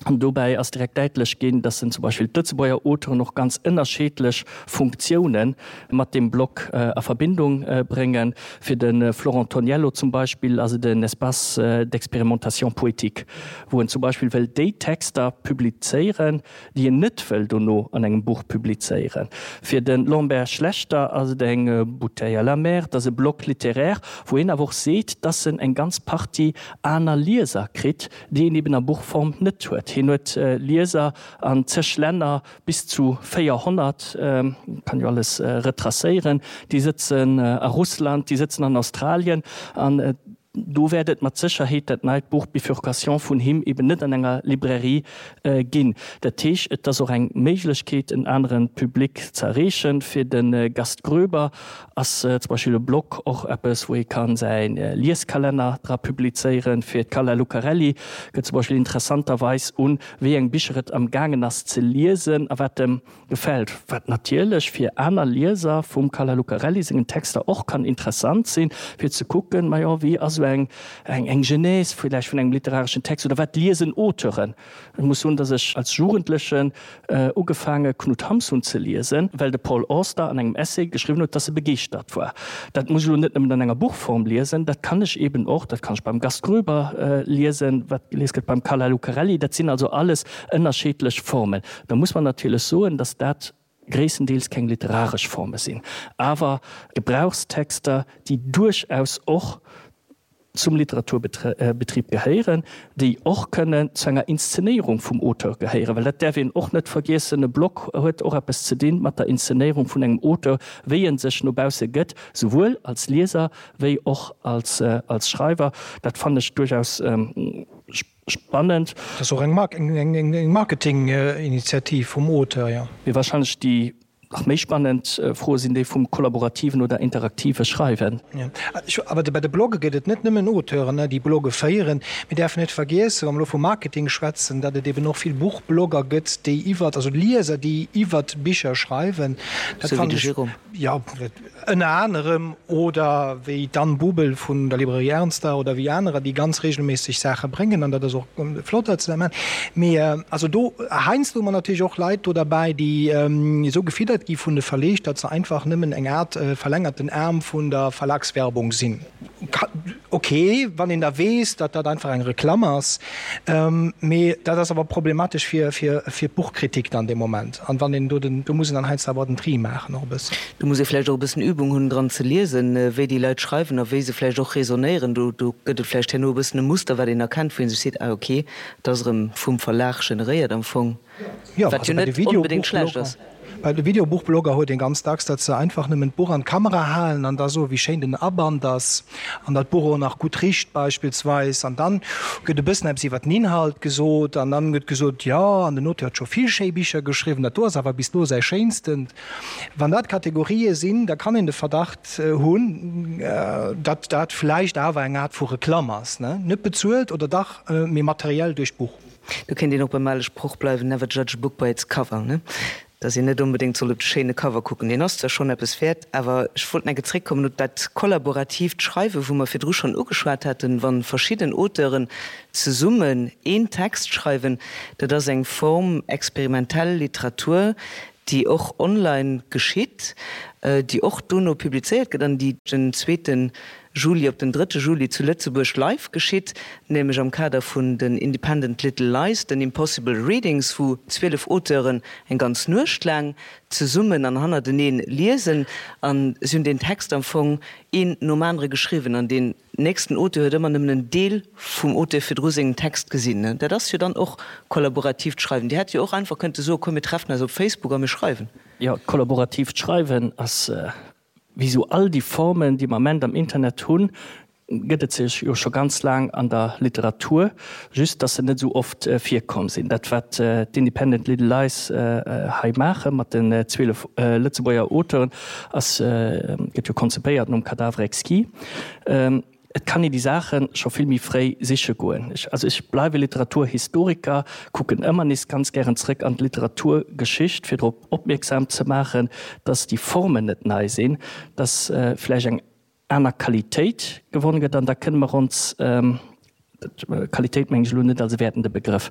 An dobäi ass direkt däitlech ginn, dass en zum Beispill d'Lëtzebuerger Auteuren och ganz ënnerscheedlech Funktioune mat deem Blog a Verbindung bréngen. Fir de Florent Toniello zum Beispill ass et en Espace d'expérimentation poétique, wou en zum Beispill wëll déi Texter publizéieren, déi en net wëll dono an engem Buch publizéieren. Fir de Lambert Schlechter ass et eng Bouteille à la mer, et ass e Blog littéraire, wou hien awer och seet, dass en eng ganz Partie aner Lieser kritt, déi een eben a Buchform net huet. Hien huet Lieser an zeg Länner, bis zu 400, kann jo alles retracéieren, déi sëtzen a Russland, déi sëtzen an Australien an do wäert et mat Sécherheet dat neit Buch Bifurcation vun him eben net an enger Librairie ginn. Dat heescht, et ass och eng Méiglechkeet, en anere Public ze erreechen. Fir de Gast Groeber Ass zum Beispill e Blog och eppes, wou ee kann säi Lieskalenner dra publizéieren? Fir d'Carla Lucarelli gëtt zum Beispill interessanterweis un, wéi eng Bicher et am gaangen ass ze liesen a wat em gefält. Wat natierlech fir aner Lieser vum Carla Lucarelli sengen Texter och kann interessant sinn, fir ze kucken, majo, wéi ass esou eng eng Genèse villäicht vun engem literareschen Text oder wat liesen Auteuren? Ech muss soen, dass ech als Jugendlechen ugefaange Knut Hamsun ze liesen, well de Paul Auster an engem Essay geschriwwen huet, dass e begeeschtert war. Dat muss ech elo net nëmmen an enger Buchform liesen, dat kann ech eben och, dat kann ech beim Gast Groeber liesen, wat gelies gëtt beim Carla Lucarelli. Dat sinn also alles ënnerscheedlech Formen. Da muss mer natierlech soen, dass dat gréisstendeels keng literaresch Forme sinn, awer Gebrauchstexter, déi duerchaus och zum Literaturbetrib gehéieren, déi och kënnen zu enger Inszenéierung vum Auteur gehéieren, well dat däerf een och net vergiessen, e Blog huet och eppes ze dinn mat der Inszenéierung vun engem Auteur, wéi e sech no bausse gëtt, souwuel als Lieser wéi och als Schreiwer. Dat fannen ech duerchaus spannend. Dat ass och eng Marketinginitiativ vum Auteur, jo. Mee wahrscheinlech déi Nach méi spannend Froe sinn déi vum kollaborativen oder interaktive Schreiwen. Awer bei de Blogge gëtt et net nëmmen Auteuren, déi Blogge féieren. Mir däerfen net vergiessen, wa mer elo vu Marketing schwätzen, datt et eben och vill Buchblogger gëtt, déi iwwert, also Lieser, déi iwwert Bicher schreiwen. Sou wéi de Jérôme. Jo, ënner anerem, oder wéi d'Anne Bubel vun der Librairie Ernster oder wéi anerer, déi ganz regelméisseg Saache bréngen, an dat ass och flott, datt se dat maachen. Mee also do, heiansdo hu mer natierlech och Leit do derbäi, déi esou gefiddert gi vun de Verleeg, datt se einfach nëmmen eng Aart verlängerten Aarm vun der Verlagswerbung sinn. Ok, wann een da weess, datt dat einfach eng Reklamm ass. Mee dat ass awer problematesch fir, fir, fir d'Buchkritik dann dee Moment. An wann een do den, do muss een dann heiansdo awer den Tri maachen och e bëssen. Do muss ee vläicht och e bëssen Übung hunn, dran ze liesen, wéi déi Leit schreiwen a wéi se vläicht och raisonnéieren. Do, do gëtt et vläicht herno e bëssen e Muster, wat een erkennt, wou ee sech seet, ah ok, dat ass erëm vum Verlag generéiert am Fong. Jo, Wat also jo bei de net onbedéngt schlecht Videobuchblogger, ass. bei de Videobuchblogger huet een ganz dacks, datt se einfach nëmmen d'Buch an d'Kamera halen an da soen, wéi schéin den Aband ass an datt d'Buch och nach gutt richt beispillsweis. An dann gëtt e bëssen eppes iwwer den Inhalt gesot an dann gëtt gesot, jo, an den Auteur huet scho vill schéi Bicher geschriwwen, dat do ass awer bis elo säi schéinstent. Wann dat Kategorië sinn, da kann een de Verdacht hunn, datt dat vläicht awer eng Aart vu Reklamm ass, ne? Net bezuelt oder dach, mee materiell duerch d'Buch. Do kéint een och beim ale Sproch bleiwen, Never judge a book by its cover, ne? Dass een net onbedéngt soll op de schéine Cover kucken. Deen ass zwar schonn eppes wäert, awer ech wollt nach eng Kéier zréckkommen op dat kollaboratiivt Schreiwen, wou mer virdru schonn ugeschwat haten, Wa verschidden Auteuren zesummen een Text schreiwen, dat ass eng Form experimentell Literatur, déi och online geschitt, déi och dono publizéiert gëtt an déi den zweeten Juli op den drëtte Juli zu Lëtzebuerg live geschitt, nämlech am Kader vun den Independent Little Lies, den Impossible Readings, wou 12 Auteuren eng ganz Nuecht laang zesummen an hannerteneen liesen. An si hunn deen Text am Fong een nom anere geschriwwen an deen nächsten Auteur huet ëmmer nëmmen en Deel vum Auteur virdru sengem Text gesinn. Dat ass jo dann och kollaboratiivt Schreiwen. Dir hätt jo och einfach kënnte soen, komm mir treffen eis op Facebook a mir schreiwen. Jo, kollaboratiivt Schreiwen ass Wéi sou all déi Formen, déi mer Ament am Internet hunn, gëtt et se jo scho ganz laang an der Literatur, just dass se net esou oft virkomm sinn. Dat wat d'Independent Little Lies hei maache mat den 12 Lëtzebuerger Auteuren ass, gëtt jo konzipéiert nom Cadavre exquis. Et kann een déi Saache scho vill méi fréi siche goen. Ech, also ech bleiwe Literaturhistoriker, kucken ëmmer nees ganz gären zrëck an d'Literaturgeschicht, fir drop opmierksam ze maachen, dass déi Formen net nei sinn, dass vläicht eng aner Qualitéit gewonn gëtt. An da kënne mer ons, Qualitéit mengen ech elo net als e wäertende Begrëff,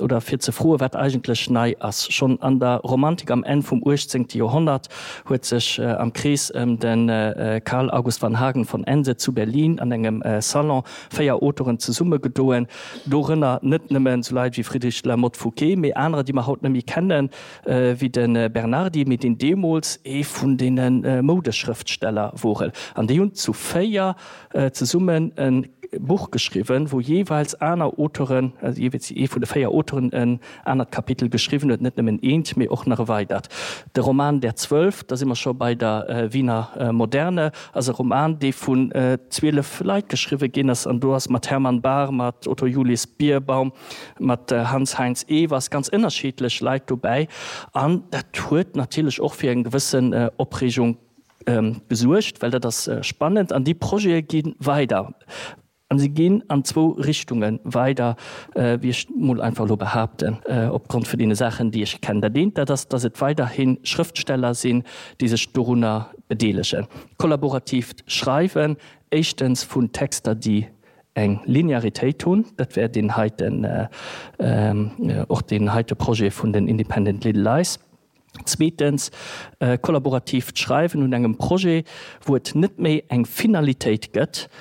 oder fir ze froen, wat eigentlech nei ass. Schonn an der Romantik am Enn vum uechtzéngte Joerhonnert huet sech am Krees ëm de Carl August van Hagen von Ense zu Berlin an engem Salon véier Auteuren zesummegedoen, dorënner net nëmmen esou Leit wéi Friedrich de la Motte Fouqué, mee anerer, déi mer haut net méi kennen, wéi de Bernardi, mee deen deemools ee vun deene Moudeschrëftsteller wor. An déi hunn zu véier zesummen e Buch geschriwwen, wou jeeweils aner Auteuren, also jeeweils ee vun de véier Auteuren en anert Kapitel geschriwwen huet, net nëmmen eent, mee och nach e weidert. De Roman Der Zwölf, da si mer scho bei der Wiener Moderne, ass e Roman, dee vun 12 Leit geschriwwe ginn ass, an do ass mat Hermann Bahr, mat Otto Julius Bierbaum, mat Hanns Heinz Ewers ganz ënnerschiddlech Leit dobäi, an dat huet natierlech och fir eng gewëssen Opreegung gesuergt, well dat ass spannend an déi Projete gi weider. An se ginn an zwou Richtunge weider, wéi ech mol einfach elo behaapten, opgrond vun deene Saachen, déi ech kennen. Dat eent, dat ass, datt et weiderhi Schrëftsteller sinn, déi sech dorunner bedeelegen. Kollaboratiivt Schreiwen, éischtens vun Texter, déi eng Linearitéit hunn, dat wär deen heiten, och deen heite Projet vun den Independent Little Lies. Zweetens, kollaboratiivt Schreiwen un engem Projet, wou et net méi eng Finalitéit gëtt.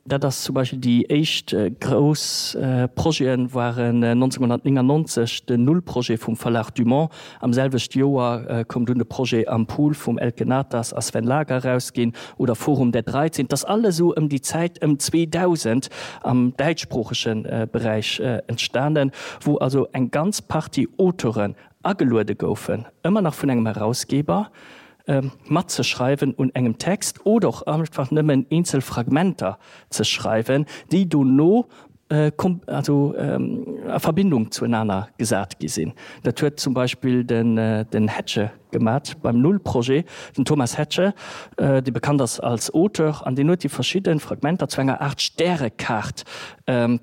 Dat ass zum Beispill déi éischt grouss Projete waren 1999 den Null-Projet vum Verlag Dumont. Am selwechte Joer koum dunn de Projet Am Pool vum Elke Naters a Sven Lager erausginn oder Forum der 13. Dat ass alles esou ëm déi Zäit ëm 2000 am däitschsproochege Beräich entstanen, wou also eng ganz Partie Auteuren ageluede goufen, ëmmer nach vun engem Herausgeber, matzeschreiwen un engem Text oder och einfach nëmmen eenzel Fragmenter ze schreiwen, déi dono also a Verbindung zuenaner gesat gi sinn. Dat huet zum Beispill den Hettche gemat beim Null-Projet, den Thomas Hettche, dee bekannt ass als Auteur, an deen huet déi verschidde Fragmenter zu enger Aart Stärekaart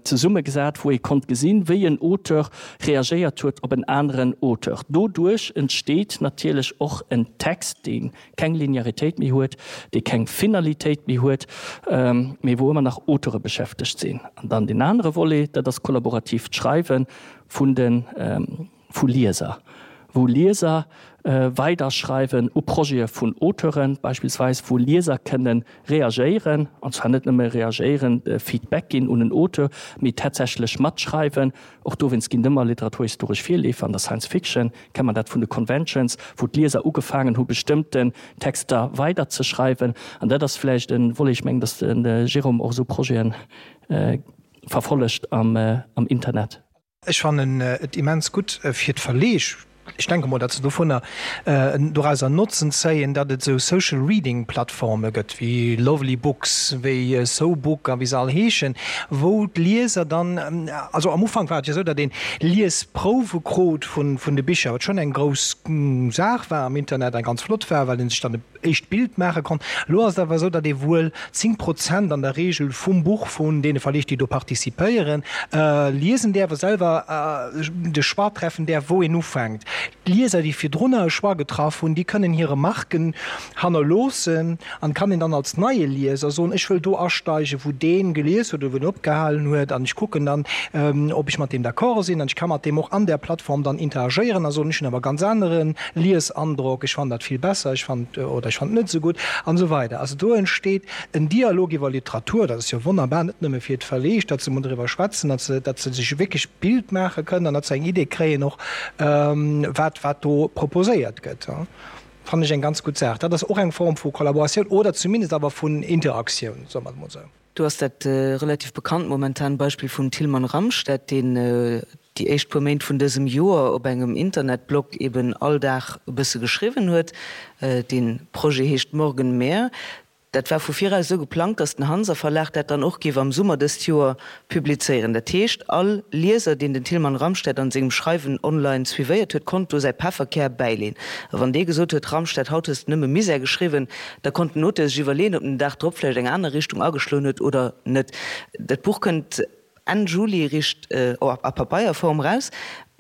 zesummegesat, wou ee konnt gesinn, wéi en Auteur reagéiert huet op en aneren Auteur. Doduerch entsteet natierlech och en Text, dee keng Linearitéit méi huet, dee keng Finalitéit méi huet, mee wou ëmmer nach Auteure beschäftegt sinn. An dann deen anere Volet, dat ass kollaboratiivt Schreiwe vun de vu Lieser, wou Lieser. Weiderschreiwen u Projete vun Auteuren, beispillsweis wou Lieser kënne reagéieren, an zwar net nëmme reagéieren, Feedback ginn un en Auteur, mee tatsächlech matschreiwen. Och dowéinst ginn et ëmmer literaturhistoresch Virleefer an der Science Fiction, kennt man dat vun de Conventions, wou d'Lieser ugefaangen hu bestëmmten Texter weiderzeschreiwen. An dat ass vläicht e Volet, ech mengen, datt de Jérôme och esou Projete verfollegt am Internet. Ech fannen et immens gutt fir d'Verleeg, ech denke mol, datt se dovunner dorauser Notzen zéien, datt et esou Social Reading Plattforme gëtt wéi Lovely Books, wéi SoBook a wéi se all heeschen, wou d'Lieser dann, also am Ufank war et jo esou, datt een Liesprouwe krut vun de Bicher, wat schonn eng grouss Saach war am Internet a ganz flott war, well ee sech dann e éischt Bild maache konnt. Elo ass et awer esou, datt ee wuel 10 Prozent an der Regel vum Buch vun deene Verleeg, déi do participéieren, liesen däerf a selwer de Choix treffen däerf, wou een ufänkt. D'Lieser, déi virdrunner e Choix getraff hunn, déi kënnen hir Remarken hannerloossen an kann een dann als neie Lieser soen, ech wëll do asteigen, wou dee gelies huet oder wou en opgehalen huet an ech kucken dann, ob ech mat deem d'accord sinn an ech ka mat deem och an där Plattform dann interagéieren a soen, ech hunn awer e ganz anere Liesandrock, ech fannen dat vill besser, ech fannen oder ech fannen et net esou gutt an esou weider. Also do entsteet en Dialog iwwer Literatur, dat ass jo wonnerbar, net nëmme fir d'Verleeg, datt se emol driwwer schwätzen, datt se, datt se sech wierklech d'Bild maache kënnen an datt se eng Idee kréien och, wat, wat do proposéiert gëtt. Fannen ech eng ganz gutt Saach. Dat ass och eng Form vu Kollaboratioun oder zumindest awer vun Interaktioun, soe mer et emol esou. Do ass dat relativ bekannt momentan Beispill vum Tilman Ramstedt, deen déi éischt puer Méint vun dësem Joer op engem Internetblog eben all Dag e bësse geschriwwen huet. Dee Projet heescht Morgen mehr. Dat war vu viraus esou geplangt, datt den Hanser Verlag dat dann och géif am Summer dëst Joer publizéieren. Dat heescht, all Lieser, deen den Tilman Ramstedt an sengem Schreiwen online suivéiert huet, konnt do säi Pefferkär bäileen. A wann dee gesot huet, Ramstedt, haut hues de nëmme Misär geschriwwen, da konnt den Auteur sech iwwerleeën, ob en den Dag drop vläicht eng aner Richtung ageschloen huet oder net. Dat Buch kënnt Enn Juli richt a Papeierform raus.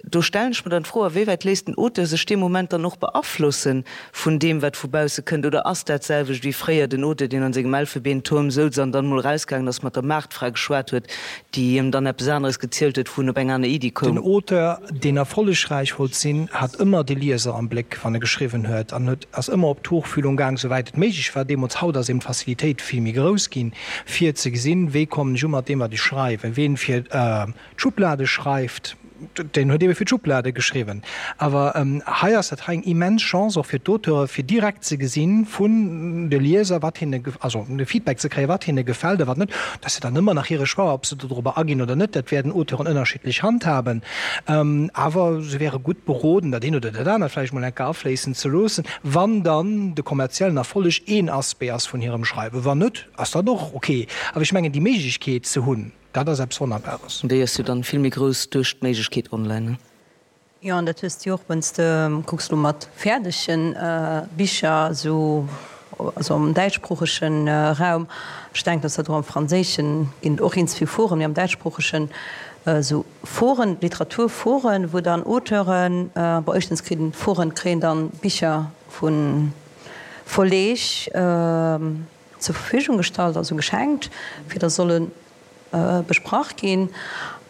Do stellen ech mer dann d'Fro, a wéiwäit léisst den Auteur sech dee Moment dann och beaflosse vun deem, wat vu bausse kënnt? Oder ass dat d'selwecht wéi fréier den Auteur, deen an sengem Elfebeentuerm souz an dann emol erausgaangen ass, mat der Maartfra geschwat huet, déi him dann eppes aneres gezielt huet, wou en op eng aner Iddi koum? Den Auteur, deen erfollegräich wollt sinn, hat ëmmer de Lieser am Bléck, wann e geschriwwen huet, an huet ass ëmmer op d'Tuchfühlung gaang, souwäit et méiglech war deemools. Haut ass eben d'Facilitéit vill méi grouss ginn, fir ze gesinn, wéi kommen ech u mat deem, wat ech schreiwen. Ween fir d'Schublade schreift, deen huet ebe fir d'Schublade geschriwwen. Awer hei ass dat hei eng immens Chance och fir d'Auteure fir direkt ze gesinn vun de Lieser, wat hinne, also de Feedback ze kréien, wat hinne gefält a wat net. Dat ass jo dann ëmmer nach hire Choix, ob se dodrobber aginn oder net. Dat wäerten Auteuren ënnerschiddlech handhaben. Awer se wäre gutt beroden, dat eent oder dat anert vläicht mol eng Kéier afléissen ze loossen, wann dann de kommerziellen Erfolleg een Aspect ass vun hirem Schreiwen. Wann net, ass dat och ok. Awer ech mengen, déi Méiglechkeet ze hunn, Dat ass eppes Wonnerbares. Déi ass jo dann vill méi grouss duerch d'Méiglechkeet online, ne? Jo, an dat hues de jo och, wann s de kucks elo mat fäerdege Bicher esou, also am däitschsproochege Raum, ech denken, dass dat och am Franséischen ginn et och eens vill Foren, mee am däitschsproochegen esou Foren, Literaturforen, wou dann Auteuren, bon éischtens kritt Foren kréien dann Bicher vu Verleeg zur Verfügung gestallt, also geschenkt, fir dass solle besprach ginn.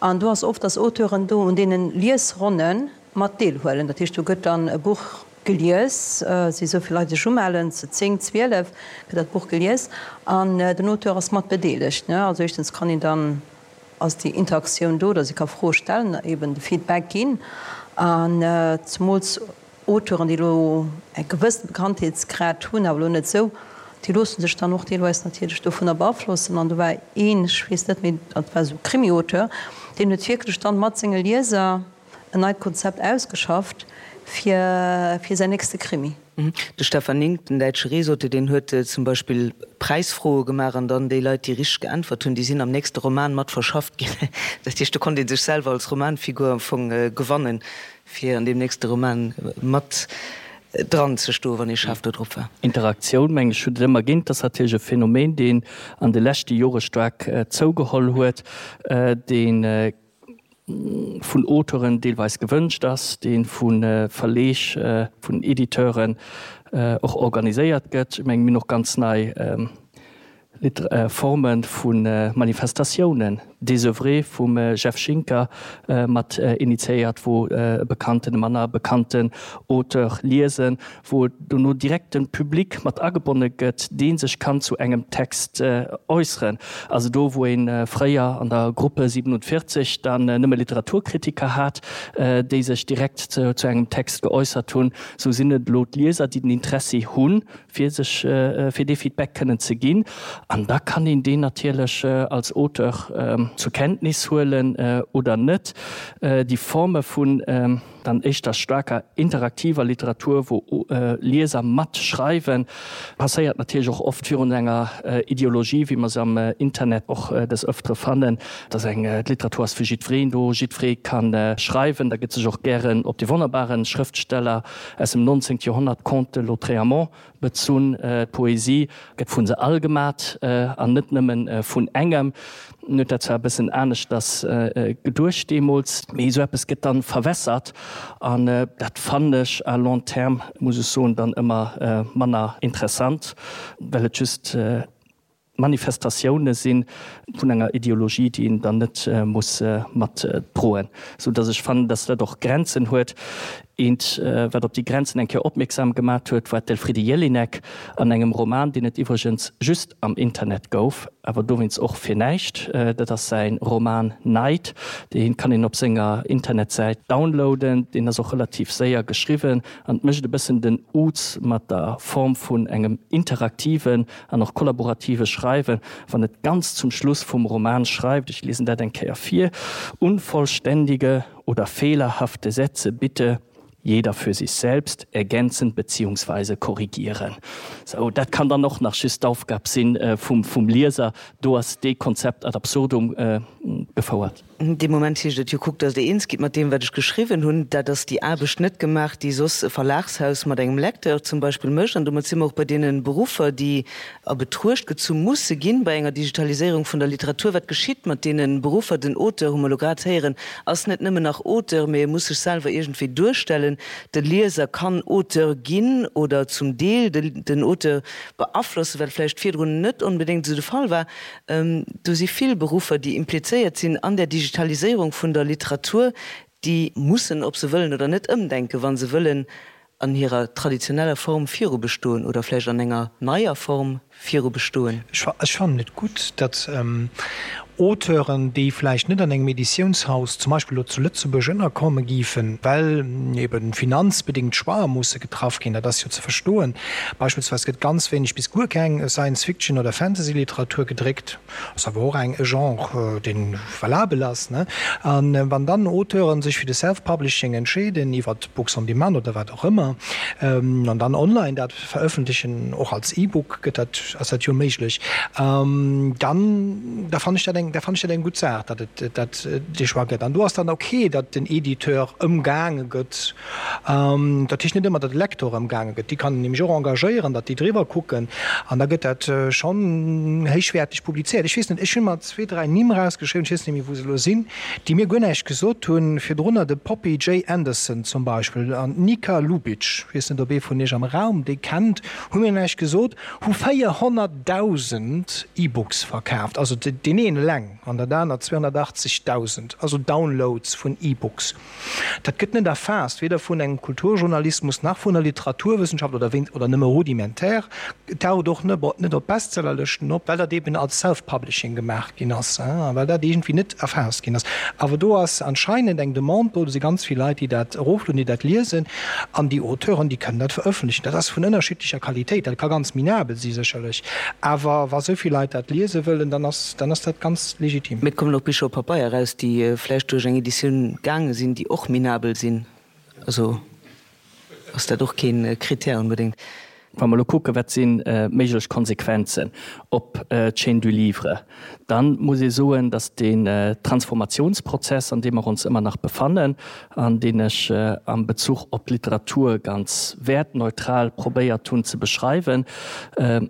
An do ass oft, dass Auteuren do un deene Liesronne mat deelhuelen. Dat heescht, do gëtt dann e Buch gelies, si esou vill Leit sech umellen, zu 10, 12 gëtt dat Buch gelies an den Auteur ass mat bedeelegt. Also éischtens kann een dann, ass déi Interaktioun do, dass ee ka Froe stellen, eben de Feedback ginn an zemools Auteuren, déi elo e gewëssene Bekanntheetsgrad hunn, awer elo net esou, déi loosse sech dann och deelweis natierlech dovunner beaflossen. An do war een, ech weess net méi, dat war esou e Krimi-Auteur, deen huet wierklech dann mat senge Lieser en neit Konzept ausgeschafft fir fir säin nächste Krimi. De Stefan Nink, den däitsche Reesauteur, deen huet zum Beispill Präisfroe gemaach an dann déi Leit, déi richteg geäntwert hunn, déi sinn am nächste Roman mat verschafft ginn. Dat heescht, do konnt ee sech selwer als Romanfigur am Fong gewannen. Fir an deem nächste Roman mat dran ze stoen, wann ee schaarf do drop war. Interaktioun, mengen ech, huet et ëmmer ginn. Et ass natierlech e Phänomen, deen an de leschte Jore staark zougeholl huet, dee vun Auteuren deelweis gewënscht ass, dee vu Verleeg, vun Editeuren och organiséiert gëtt. Ech mengen, mir hunn och ganz nei Forme vu Manifestatiounen. Désœuvré vum Jeff Schinker mat initiéiert, wou e bekannten, e manner bekannten Auteur liesen, wou dono direkt de Public mat agebonne gëtt, dee sech kann zu engem Text äusseren. Also do, wou ee fréier an der Gruppe 47 dann nëmme Literaturkritiker hat, déi sech direkt zu engem Text geäussert hunn, sou sinn et elo d'Lieser, déi den Interessi hunn, fir sech, fir dee Feedback kënnen ze ginn. An da kann een deen natierlech als Auteur zur Kenntnis huelen oder net. Déi Forme vun dann éischter staarker interaktiver Literatur, wou Lieser matschreiwen, passéiert natierlech och oft virun enger Ideologie, wéi mer se am Internet och des Ëftere fannen, dass eng d'Literatur ass fir jiddwereen do, jiddweree ka schreiwen. Da gëtt sech och gären op de wonnerbare Schrëftsteller aus dem 19. Joerhonnert, Comte de Lautréamont, bezunn. D'Poesie gëtt vu se all gemat an net nëmme vun engem. En huet dat zwar e bëssen aneschters geduecht deemools, mee esou eppes gëtt dann verwässert an dat fannen ech à long terme, muss ech soen, dann ëmmer manner interessant, well et just Manifestatioune si vun enger Ideologie, déi een dann net muss mat droen, sou datt ech fannen, datt dat och Grenzen huet. Eent, wat op déi Grenzen eng Kéier opmierksam gemat huet, war d'Elfriede Jelinek an engem Roman, deen et iwwregens just am Internet gouf, awer dowéinst och fir näischt. Dat ass säi Roman Neid. Dee kann een op senger Internetsäit downloaden. Deen ass och relativ séier geschriwwen an mécht e bëssen den Uz mat der Form vun engem interaktiven an och kollaborative Schreiwen, wann et ganz zum Schluss vum Roman schreift, ech liesen dat eng Kéier vir, Unvollständige oder fehlerhafte Sätze bitte jeder für sich selbst ergänzen beziehungsweise korrigieren. Sou, dat kann dann och nach just d'Aufgab si vum Lieser. Do ass dee Konzept ad absurdum gefouert. Dee Moment heescht et jo, kuckt, datt Der eens gitt mat deem, wat ech geschriwwen hunn. Dat ass déi Aarbecht net gemaach, déi soss e Verlagshaus mat engem Lecteur zum Beispill mécht. An domat si mer och bei deene Beruffer, déi a Betruecht gezu musse ginn bei enger Digitaliséierung vun der Literatur. Wat geschitt mat deene Beruffer? Den Auteur, hu mer elo grad héieren, ass net nëmmen nach Auteur, mee e muss sech selwer iergendwéi duerstellen. De Lieser kann Auteur ginn oder zum Deel den Auteur beaflossen, wat vläicht virdrun net onbedéngt esou de Fall war. Do si vill Beruffer, déi implizéiert sinn an där Digitaliséierung vun der Literatur, déi mussen, ob se wëllen oder net, ëmdenken, wa se wëllen an hirer traditioneller Form virubestoen oder vläicht an enger neier Form virubestoen. Ech fannen et gutt, datt Auteuren, déi vläicht net an engem Editiounshaus, zum Beispill elo zu Lëtzebuerg, ënnerkomme géifen, well ebe finanzbedéngt Choixë musse getraff ginn, dat ass jo ze verstoen, Beispillsweis gëtt ganz wéineg bis guer keng Science-Fiction oder Fantasy-Literatur gedréckt, ass awer och eng e Genre, dee valabel ass, ne? A wann dann Auteuren sech fir de Self-Publishing entscheeden, iwwer Books on Demand oder wat och ëmmer, an dann online dat verëffentlechen, och als E-Book gëtt dat, ass dat jo méiglech, dann da fannen ech dat eng, da fannen ech dat eng gutt Saach, datt et dat dee Choix gëtt. An do ass dann ok, datt den Editeur ëmgaange gëtt. Dat heescht net ëmmer, datt e Lektor ëmgaange gëtt. Déi kann een nämlech och engagéieren, datt déi driwwer kucken an da gëtt dat schonn héichwäerteg publizéiert. Ech weess net, ech hu mer zwee, dräi Nimm erausgeschriwwen, ech weess net méi, wou se elo sinn, déi mir guer näischt gesot hunn. Virdrunner de Poppy J. Anderson zum Beispill an d'Nika Lubitsch, ech weess net, ob ee vun iech am Raum déi kennt, hu mir näischt gesot, hu 400.000 E-Books verkaaft, also deen een eleng an dat anert 280.000, also Downloads vun E-Books. Dat gëtt net erfaasst, weder vun engem Kulturjournalismus nach vun der Literaturwëssenschaft oder wéinst oder nëmme rudimentär. Et taucht och net op Bestsellerlëschten op, well dat eben als Self-Publishing gemaach ginn ass a well dat iergendwéi net erfaasst ginn ass. Awer do ass anscheinend eng Demande do, do si ganz vill Leit, déi dat eroflueden, déi dat liesen an déi Auteuren, déi kënnen dat verëffentlechen. Dat ass vun ënnerschiddlecher Qualitéit, dat ka ganz minabel si sécherlech, awer wa sou vill Leit dat liese wëllen, dann ass dann ass dat ganz legitim. Mee et kommen och Bicher op Pabeier eraus, déi vläicht duerch eng Editioun gaange sinn, déi och minabel sinn. Also ass dat och kee Critère onbedéngt. Wa mer elo kucken, wat si méiglech Konsequenzen op d'Chaîne du livre, da muss ee soen, datt deen Transformationsprozess, an deem mer ons ëmmer nach befannen an deen ech am Bezuch op d'Literatur ganz wäertneutral probéiert hunn ze beschreiwen,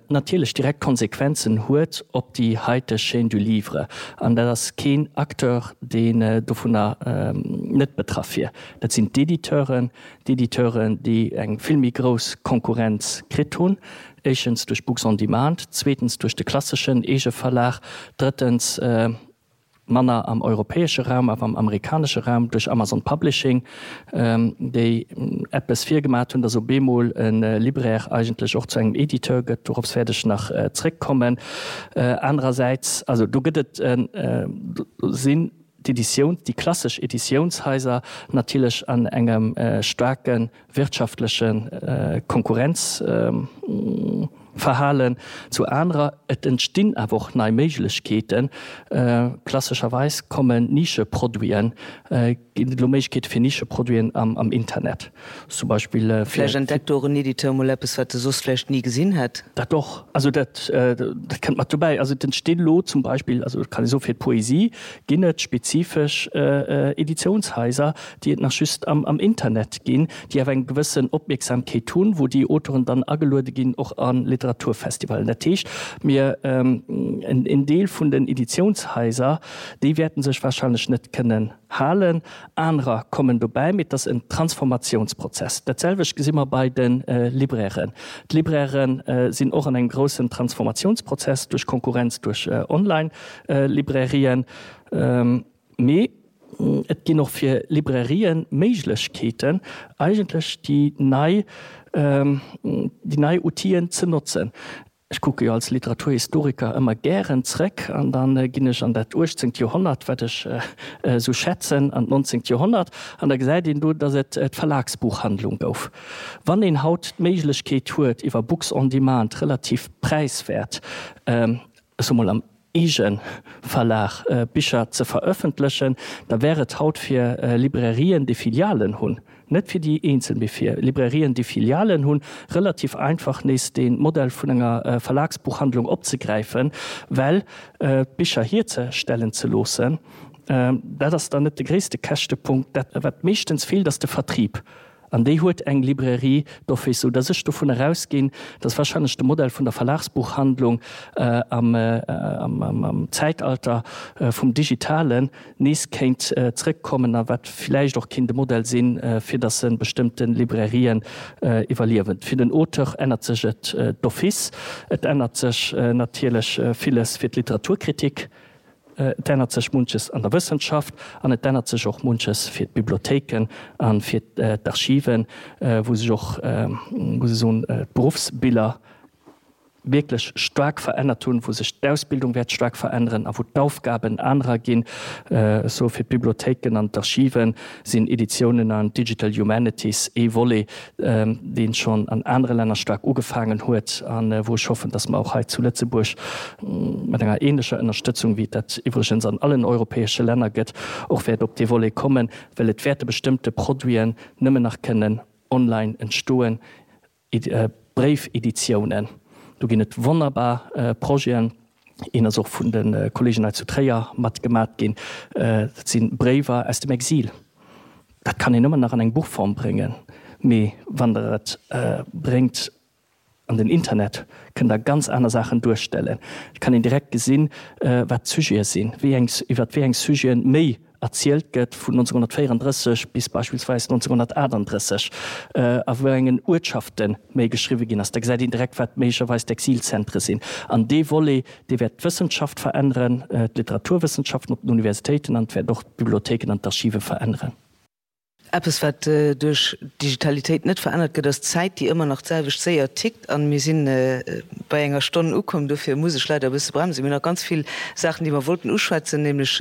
natierlech direkt Konsequenzen huet op déi haiteg Chaîne du livre. An dat ass keen Acteur, deen dovunner net betraff wier. Dat sinn d'Editeuren, d'Editeuren, déi eng vill méi grouss Konkurrenz kritt hunn, éischens duerch Books on Demand, zweetens duerch de klasseschen Eegeverlag, drëttens. Manner am europäesche Raum, awer am amerikanesche Raum duerch Amazon Publishing, déi eppes virgemaat hunn, dass op eemol e Libraire eigentlech och zu engem Editeur gëtt. Dorops wäert ech nach zréckkommen. Anerersäits, also do gëtt et, do sinn d'Editioun, déi klassesch Editiounshaiser natierlech an engem staarke wirtschaftleche Konkurrenzverhalen zu anerer. Et entstinn awer och nei Méiglechkeeten. Klassescherweis kommen Nischeproduiten, ginn et elo Méiglechkeete fir Nischeproduiten am Internet zum Beispill. Vläicht entdeckt do och en Editeur mol eppes, wat e soss vläicht ni gesinn hätt. Dat och. Also dat kënnt mat dobäi. Also et entstinn elo zum Beispill, also et kann ee soen, fir d'Poesie ginn et spezifesch Editiounshaiser, déi et nach just am Internet ginn, déi awer eng gewëssen Opmierksamkeet hunn, wou déi Auteuren dann ageluede ginn, och a Literaturfestivalen. Dat heescht, mir, en Deel vun den Editiounshaiser, déi wäerten sech wahrscheinlech net kënnen halen, anerer kommen dobäi, mee et ass en Transformatiounsprozess. Dat selwecht gesi mer bei de Librairen. D'Libraire sinn och an engem groussen Transformatiounsprozess duerch Konkurrenz duerch Online-Librairien. Mee et ginn och fir Librairien Méiglechkeeten, eigentlech déi nei, déi nei Outiller ze notzen. Ech kucke jo als Literaturhistoriker ëmmer gären zréck an da ginn ech an dat uechtzéngt Joerhonnert, wat ech esou schätzen, an d'nonzéngt Joerhonnert, an da gesäit een do, datt et d'Verlagsbuchhandlung gouf. Wann een haut d'Méiglechkeet huet, iwwer Books on Demand relativ präiswäert, ech soe mol am Eegeverlag Bicher ze verëffentlechen, da wär et haut fir Librairien, déi Filialen hunn, net fir déi eenzel, mee fir Librairien, déi Filialen hunn, relativ einfach nees dee Modell vun enger Verlagsbuchhandlung opzegräifen, well d'Bicher hierzestellen ze loossen, dat ass dann net de gréisste Käschtepunkt. Dat wat meeschtens feelt, ass de Vertrieb. An déi huet eng Librairie d'office, sou dass ech dovun erausginn, dass wahrscheinlech de Modell vun der Verlagsbuchhandlung am Zäitalter vum Digitalen nees kéint zrëckkommen a wat villäicht och kéint e Modell sinn, fir dass e bestëmmte Librairien iwwerliewen. Fir den Auteur ännert sech et d'office. Et ännert sech natierlech villes fir d'Literaturkritik. Et ännert sech munches an der Wëssenschaft an et ännert sech och munches fir d'Bibliothéiken a fir d'Archiven, wou sech och, muss ech soen, d'Beruffsbiller wierklech staark verännert hunn, wou sech d'Ausbildung wäert staark veränneren a wou d'Aufgaben anerer ginn. Ech soe fir d'Bibliothéiken an d'Archive sinn Editiounen an Digital Humanities ee Volet, dee schonn an anere Länner staark ugefaangen huet a wou ech hoffen, dass mer och hei zu Lëtzebuerg mat enger ähnlecher Ënnerstëtzung, wéi et dat iwwregens an allen europäesche Länner gëtt, och wäert op dee Volet kommen, well et wäerte bestëmmte Produiten nëmmen nach kënnen online entstoen, Bréifeditiounen. Do ginn et wonnerbar Projeten. Een ass och vun de Kollegen hei zu Tréier mat gemat ginn. Dat si Bréiwer aus dem Exil. Dat kann een ëmmer nach an eng Buchform bréngen, mee wann Der et bréngt an den Internet, kënnt Der ganz aner Saachen duerstellen. Et kann een direkt gesinn, wat d'Sujete sinn, wéi eng, iwwer wéi eng Sujete méi erzielt gëtt vun 1934 bis beispillsweis 1938, a wou engen Uertschafte méi geschriwwe ginn ass, da gesäit een direkt, wat méiglecherweis d'Exilzentre sinn. An dee Volet, dee wäert d'Wëssenschaft veränneren, d'Literaturwëssenschaften op den Universitéiten an et wäert och d'Bibliothéiken an d'Archive veränneren. Eppes, wat duerch d'Digitalitéit net verännert gëtt, ass d'Zäit, déi ëmmer nach d'selwecht séier tickt. An mir si bei enger Stonn ukomm, dofir muss ech leider e bësse bremsen. Mir hunn nach ganz vill Saachen, déi mer wollten uschwätzen, nämlech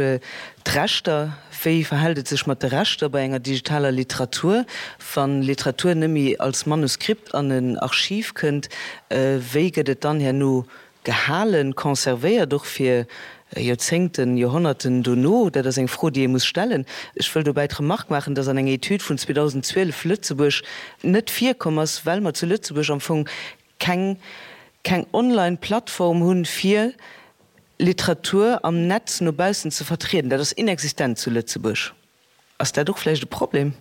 d'Rechter. Wéi verhält et sech mat de Rechter bei enger digitaler Literatur, wa Literatur net méi als Manuskript an en Archiv kënnt? Wéi gëtt et dann herno Gehalen, conservéiert, och fir Joerzéngten, Joerhonnerten dono? Dat ass eng Fro, déi ee muss stellen. Ech wëll dobäi d'Remark maachen, dass an enger Etüd vun 2012 Lëtzebuerg net virkomm ass, well mer zu Lëtzebuerg am Fong keng, keng Online-Plattform hunn, fir Literatur am Netz no baussen ze vertrieden. Dat ass inexistent zu Lëtzebuerg. Ass dat och vläicht e Problem?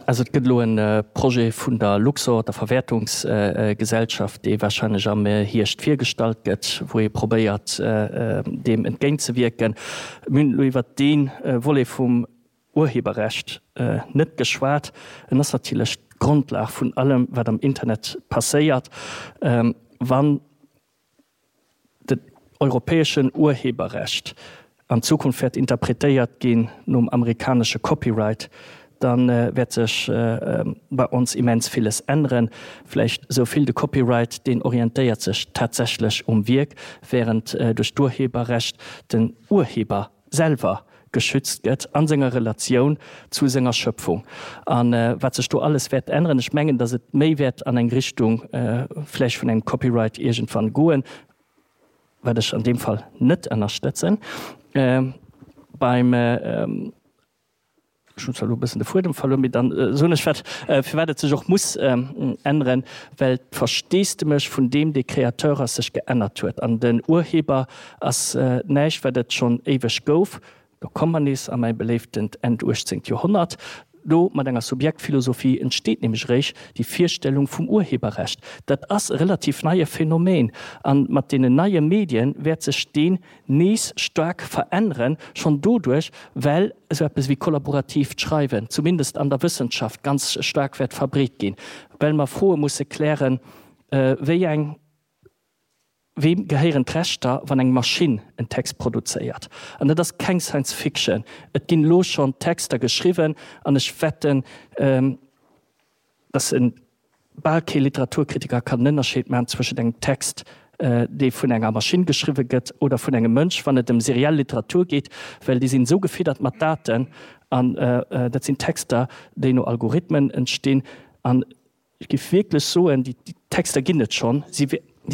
Also et gëtt elo e Projet vun der Luxor, der Verwäertungsgesellschaft, dee wahrscheinlech am Hierscht virgestallt gëtt, wou ee probéiert deem entgéintzewierken. Mir hunn elo iwwert dee Volet vum Urheberrecht net geschwat. En ass natierlech d'Grondlag vun allem, wat am Internet passéiert. Wann. Den europäeschen Urheberrecht an Zukunft wäert interpretéiert ginn nom amerikanesche Copyright, da wäert sech bei ons immens villes änneren. Vläicht esou vill, de Copyright, deen orientéiert sech tatsächlech um Wierk, während duerch d'Urheberrecht den Urheber selwer geschützt gëtt a senger Relatioun zu senger Schöpfung. A wat sech do alles wäert änneren, ech mengen, datt et méi wäert an eng Richtung vläicht vun engem Copyright iergendwann goen, wat ech an deem Fall net ënnerstëtzen. Beim, ech hunn zwar elo e bëssen de Fuedem verluer, mee dann soen ech wat, firwat et sech och muss änneren, well d'Versteesdemech vun deem, dee Créateur ass, sech geännert huet. An den Urheber ass näischt, wat et schonn éiweg gouf. Do komme mer nees a mäi beléiftent Enn uechtzéngt Joerhonnert. Do, mat enger Subjektphilosophie, entsteet nämlech eréischt déi Virstellung vum Urheberrecht. Dat ass e relativ neie Phänomen. A mat deenen neie Medien wäert sech deen nees staark veränneren, schonn doduerch, well esou eppes wéi kollaboratiivt Schreiwen, zumindest an der Wëssenschaft, ganz staark wäert verbreet ginn, well mer Froe musse klären, wéi eng. Weem gehéieren d'Rechter, wann eng Maschinn en Text produzéiert? An dat ass keng Science Fiction. Et ginn elo schonn Texter geschriwwen an ech wetten, dass e bal kee Literaturkritiker kann en Ënnerscheed maachen zwëschent engem Text, dee vun enger Maschinn geschriwwe gëtt oder vun engem Mënsch, wann et ëm seriell Literatur geet, well déi sinn esou gefiddert mat Daten an dat sinn Texter, déi no Algorithmen entstinn. An Ech géif wierklech soen, déi Texter ginn et schonn, si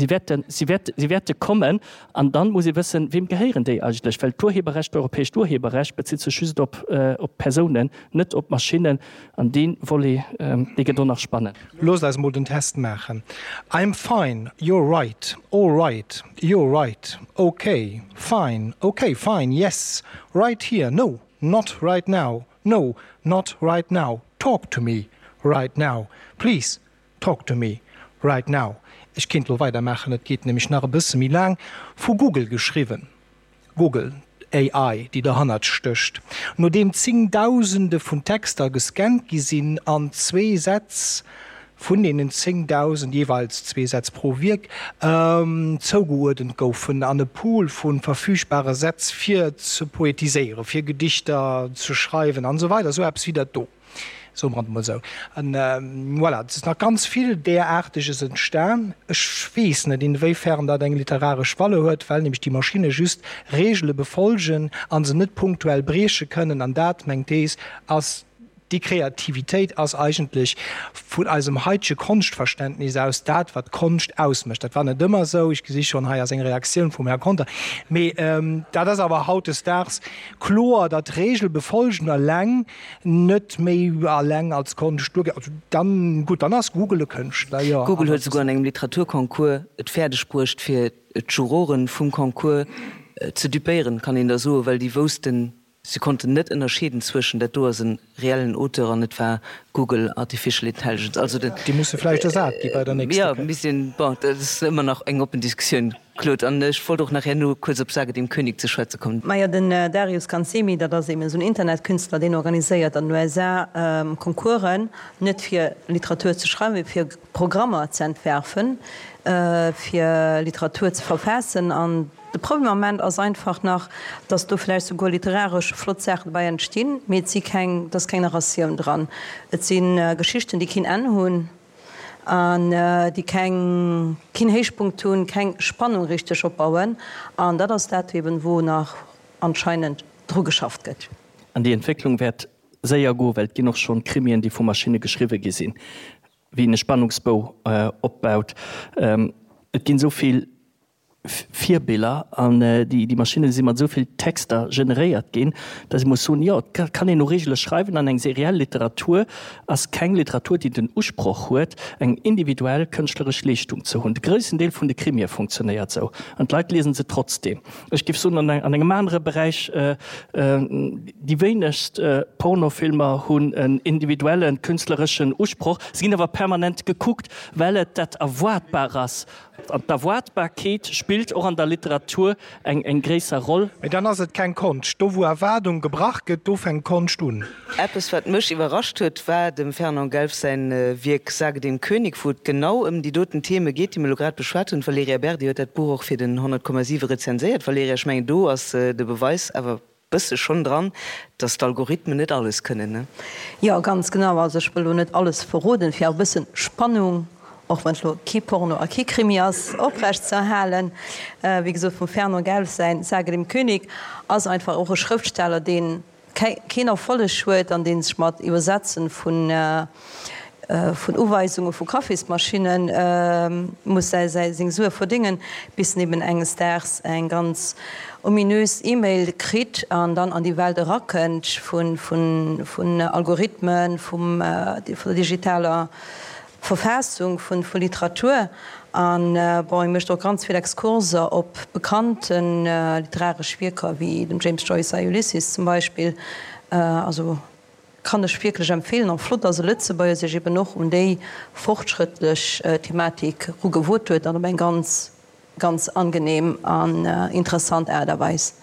wäerten, si wäerten, si wäerte kommen. An dann muss ee wëssen, Weem gehéieren déi eigentlech? Well d'Urheberrecht, d'europäescht Urheberrecht bezitt sech just op, op Persounen, net op Maschinnen. An dee Volet, dee gëtt och nach spannend. Loosst eis mol den Test maachen. I'm fine, you're right, all right, you're right, ok, fine, ok, fine, yes, right here, no, not right now, No, not right now, talk to me right now, please talk to me right now. Ech kéint lo weidermaachen, et geet nämlech nach e bësse méi laang. Vu Google geschriwwen, Google, AI, déi derhannert stécht. Nodeem zéngdausende vun Texter gescannt gi sinn an zwee Sätz vun deenen 10.000, jeeweils zwee Sätz pro Wierk, zougeuerdent goufen an e Pool vu verfügbare Sätz fir ze poetiséieren, fir Gedichter ze schreiwen an esou weider, esou eppes wéi dat do, soe mer et emol esou. An voilà, et ass nach ganz vill Däraarteges entstan. Ech weess net, inwéifern dat eng literaresch Valeur huet, well nämlech déi Maschinne just Reegele befolgen a se net punktuell brieche kënnen. An dat, meng Thees, ass Déi Kreativitéit ass eigentlech vun eisem haitege Konschtverständnis aus dat, wat Konscht ausmécht. Dat war net ëmmer esou, ech gesi schonn, hei ass eng Reaktioun vum Här Conter, mee dat ass awer hautdesdaags kloer, datt Regelbefolgen eleng net méi eleng als Konscht duergeet. Also dann, gutt, dann ass Google e Kënschtler, jo. Google huet esouguer an engem Literaturconcours et fäerdeg bruecht, fir d'Juroren vum Concours ze dupéieren, kann een da soen, well déi woussten, Si konnten net ënnerscheeden zwëschen, dat do ass e reellen Auteur an et war Google Artificial Intelligence. Also den. Déi musse vläicht ersat gi bei der nächster Kéier. Jo, misst een, bon, dat ass ëmmer nach eng oppen Diskussioun, Claude. An ech wollt och nach herno kuerz op Sage dem König ze schwätze kommen. Majo, den Darius Kanzemi, dat ass eben esou en Internetkünstler, deen organiséiert an den USA Concoursen, net fir Literatur ze schreiwen, mee fir Programmer ze entwerfen, fir Literatur ze verfaassen. An de Problem am Ament ass einfach nach, datt do vläicht souguer literaresch flott Saachen dobäi entstinn, mee et si keng, et ass keng Narratioun dran. Et si Geschichten, déi keen Enn hunn an déi keng, keen Héichpunkt hunn, keng Spannung richteg opbauen. An dat ass dat eben, wou nach anscheinend dru geschafft gëtt. An déi Entwécklung wäert séier goen, well et ginn och schonn Krimien, déi vu Maschinne geschriwwe gi sinn. Wéi een e Spannungsbou opbaut. Et ginn esou vill Virbiller an déi Maschinne si mat esou vill Texter generéiert ginn, datt ee muss soen, jo, et kann een no Reegele schreiwen an eng seriell Literatur ass keng Literatur, déi den Usproch huet, eng individuell kënschtleresch Leeschtung ze hunn. De groussen Deel vun de Krimie funktionéiert esou an d'Leit liesen se trotzdeem. Ech géif soen, an engem anere Beräich, déi wéinegst Pornofilmer hunn en individuellen, künstlereschen Usproch, se ginn awer permanent gekuckt, well et dat Erwaartbar ass. An d'Erwaartbarkeet spillt. Spillt och an der Literatur eng eng gréisser Roll. Mee dann ass et keng Konscht. Do wou Erwaardung gebrach gëtt, do fänkt Konscht un. Eppes wat mech iwwerrascht huet, war dem Fernand Gelf säin Wierk Sage dem König, wou et genau ëm déi doten Theme geet, déi mir elo grad beschwat hunn. D'Valerija Berdi huet dat Buch och fir den 100,7 rezenséiert. Valerija, ech mengen do ass de Beweis awer bësse schonn dran, dass d'Algorithmen net alles kënnen, ne? Jo, ganz genau. Also ech wëll elo net alles verroden, fir awer e bëssen Spannung, och wann et elo kee Porno a kee Krimi ass, oprecht ze erhalen. Wéi gesot, vum Fernand Gelf säin Sage dem König ass einfach och e Schrëftsteller, deen keen Erfolleg huet an dee sech mat Iwwersetzen vun vun Uweisunge vu Kaffismaschinne muss säi seng Sue verdéngen, bis en eben enges Daags eng ganz ominös E-Mail kritt an dann an déi Welt erakënnt vun Algorithmen, vum vun der digitaler Verfaassung vu Literatur. An bon, e mécht och ganz vill Exkurser op bekannte literaresch Wierker wéi dem James Joyce säi Ulysses zum Beispill. Also Kann ech wierklech empfehlen an flott dass e Lëtzebuerger sech eben och un déi fortschrëttlech Thematik rugewot huet an op eng ganz ganz angenehm an interessant Aart a Weis.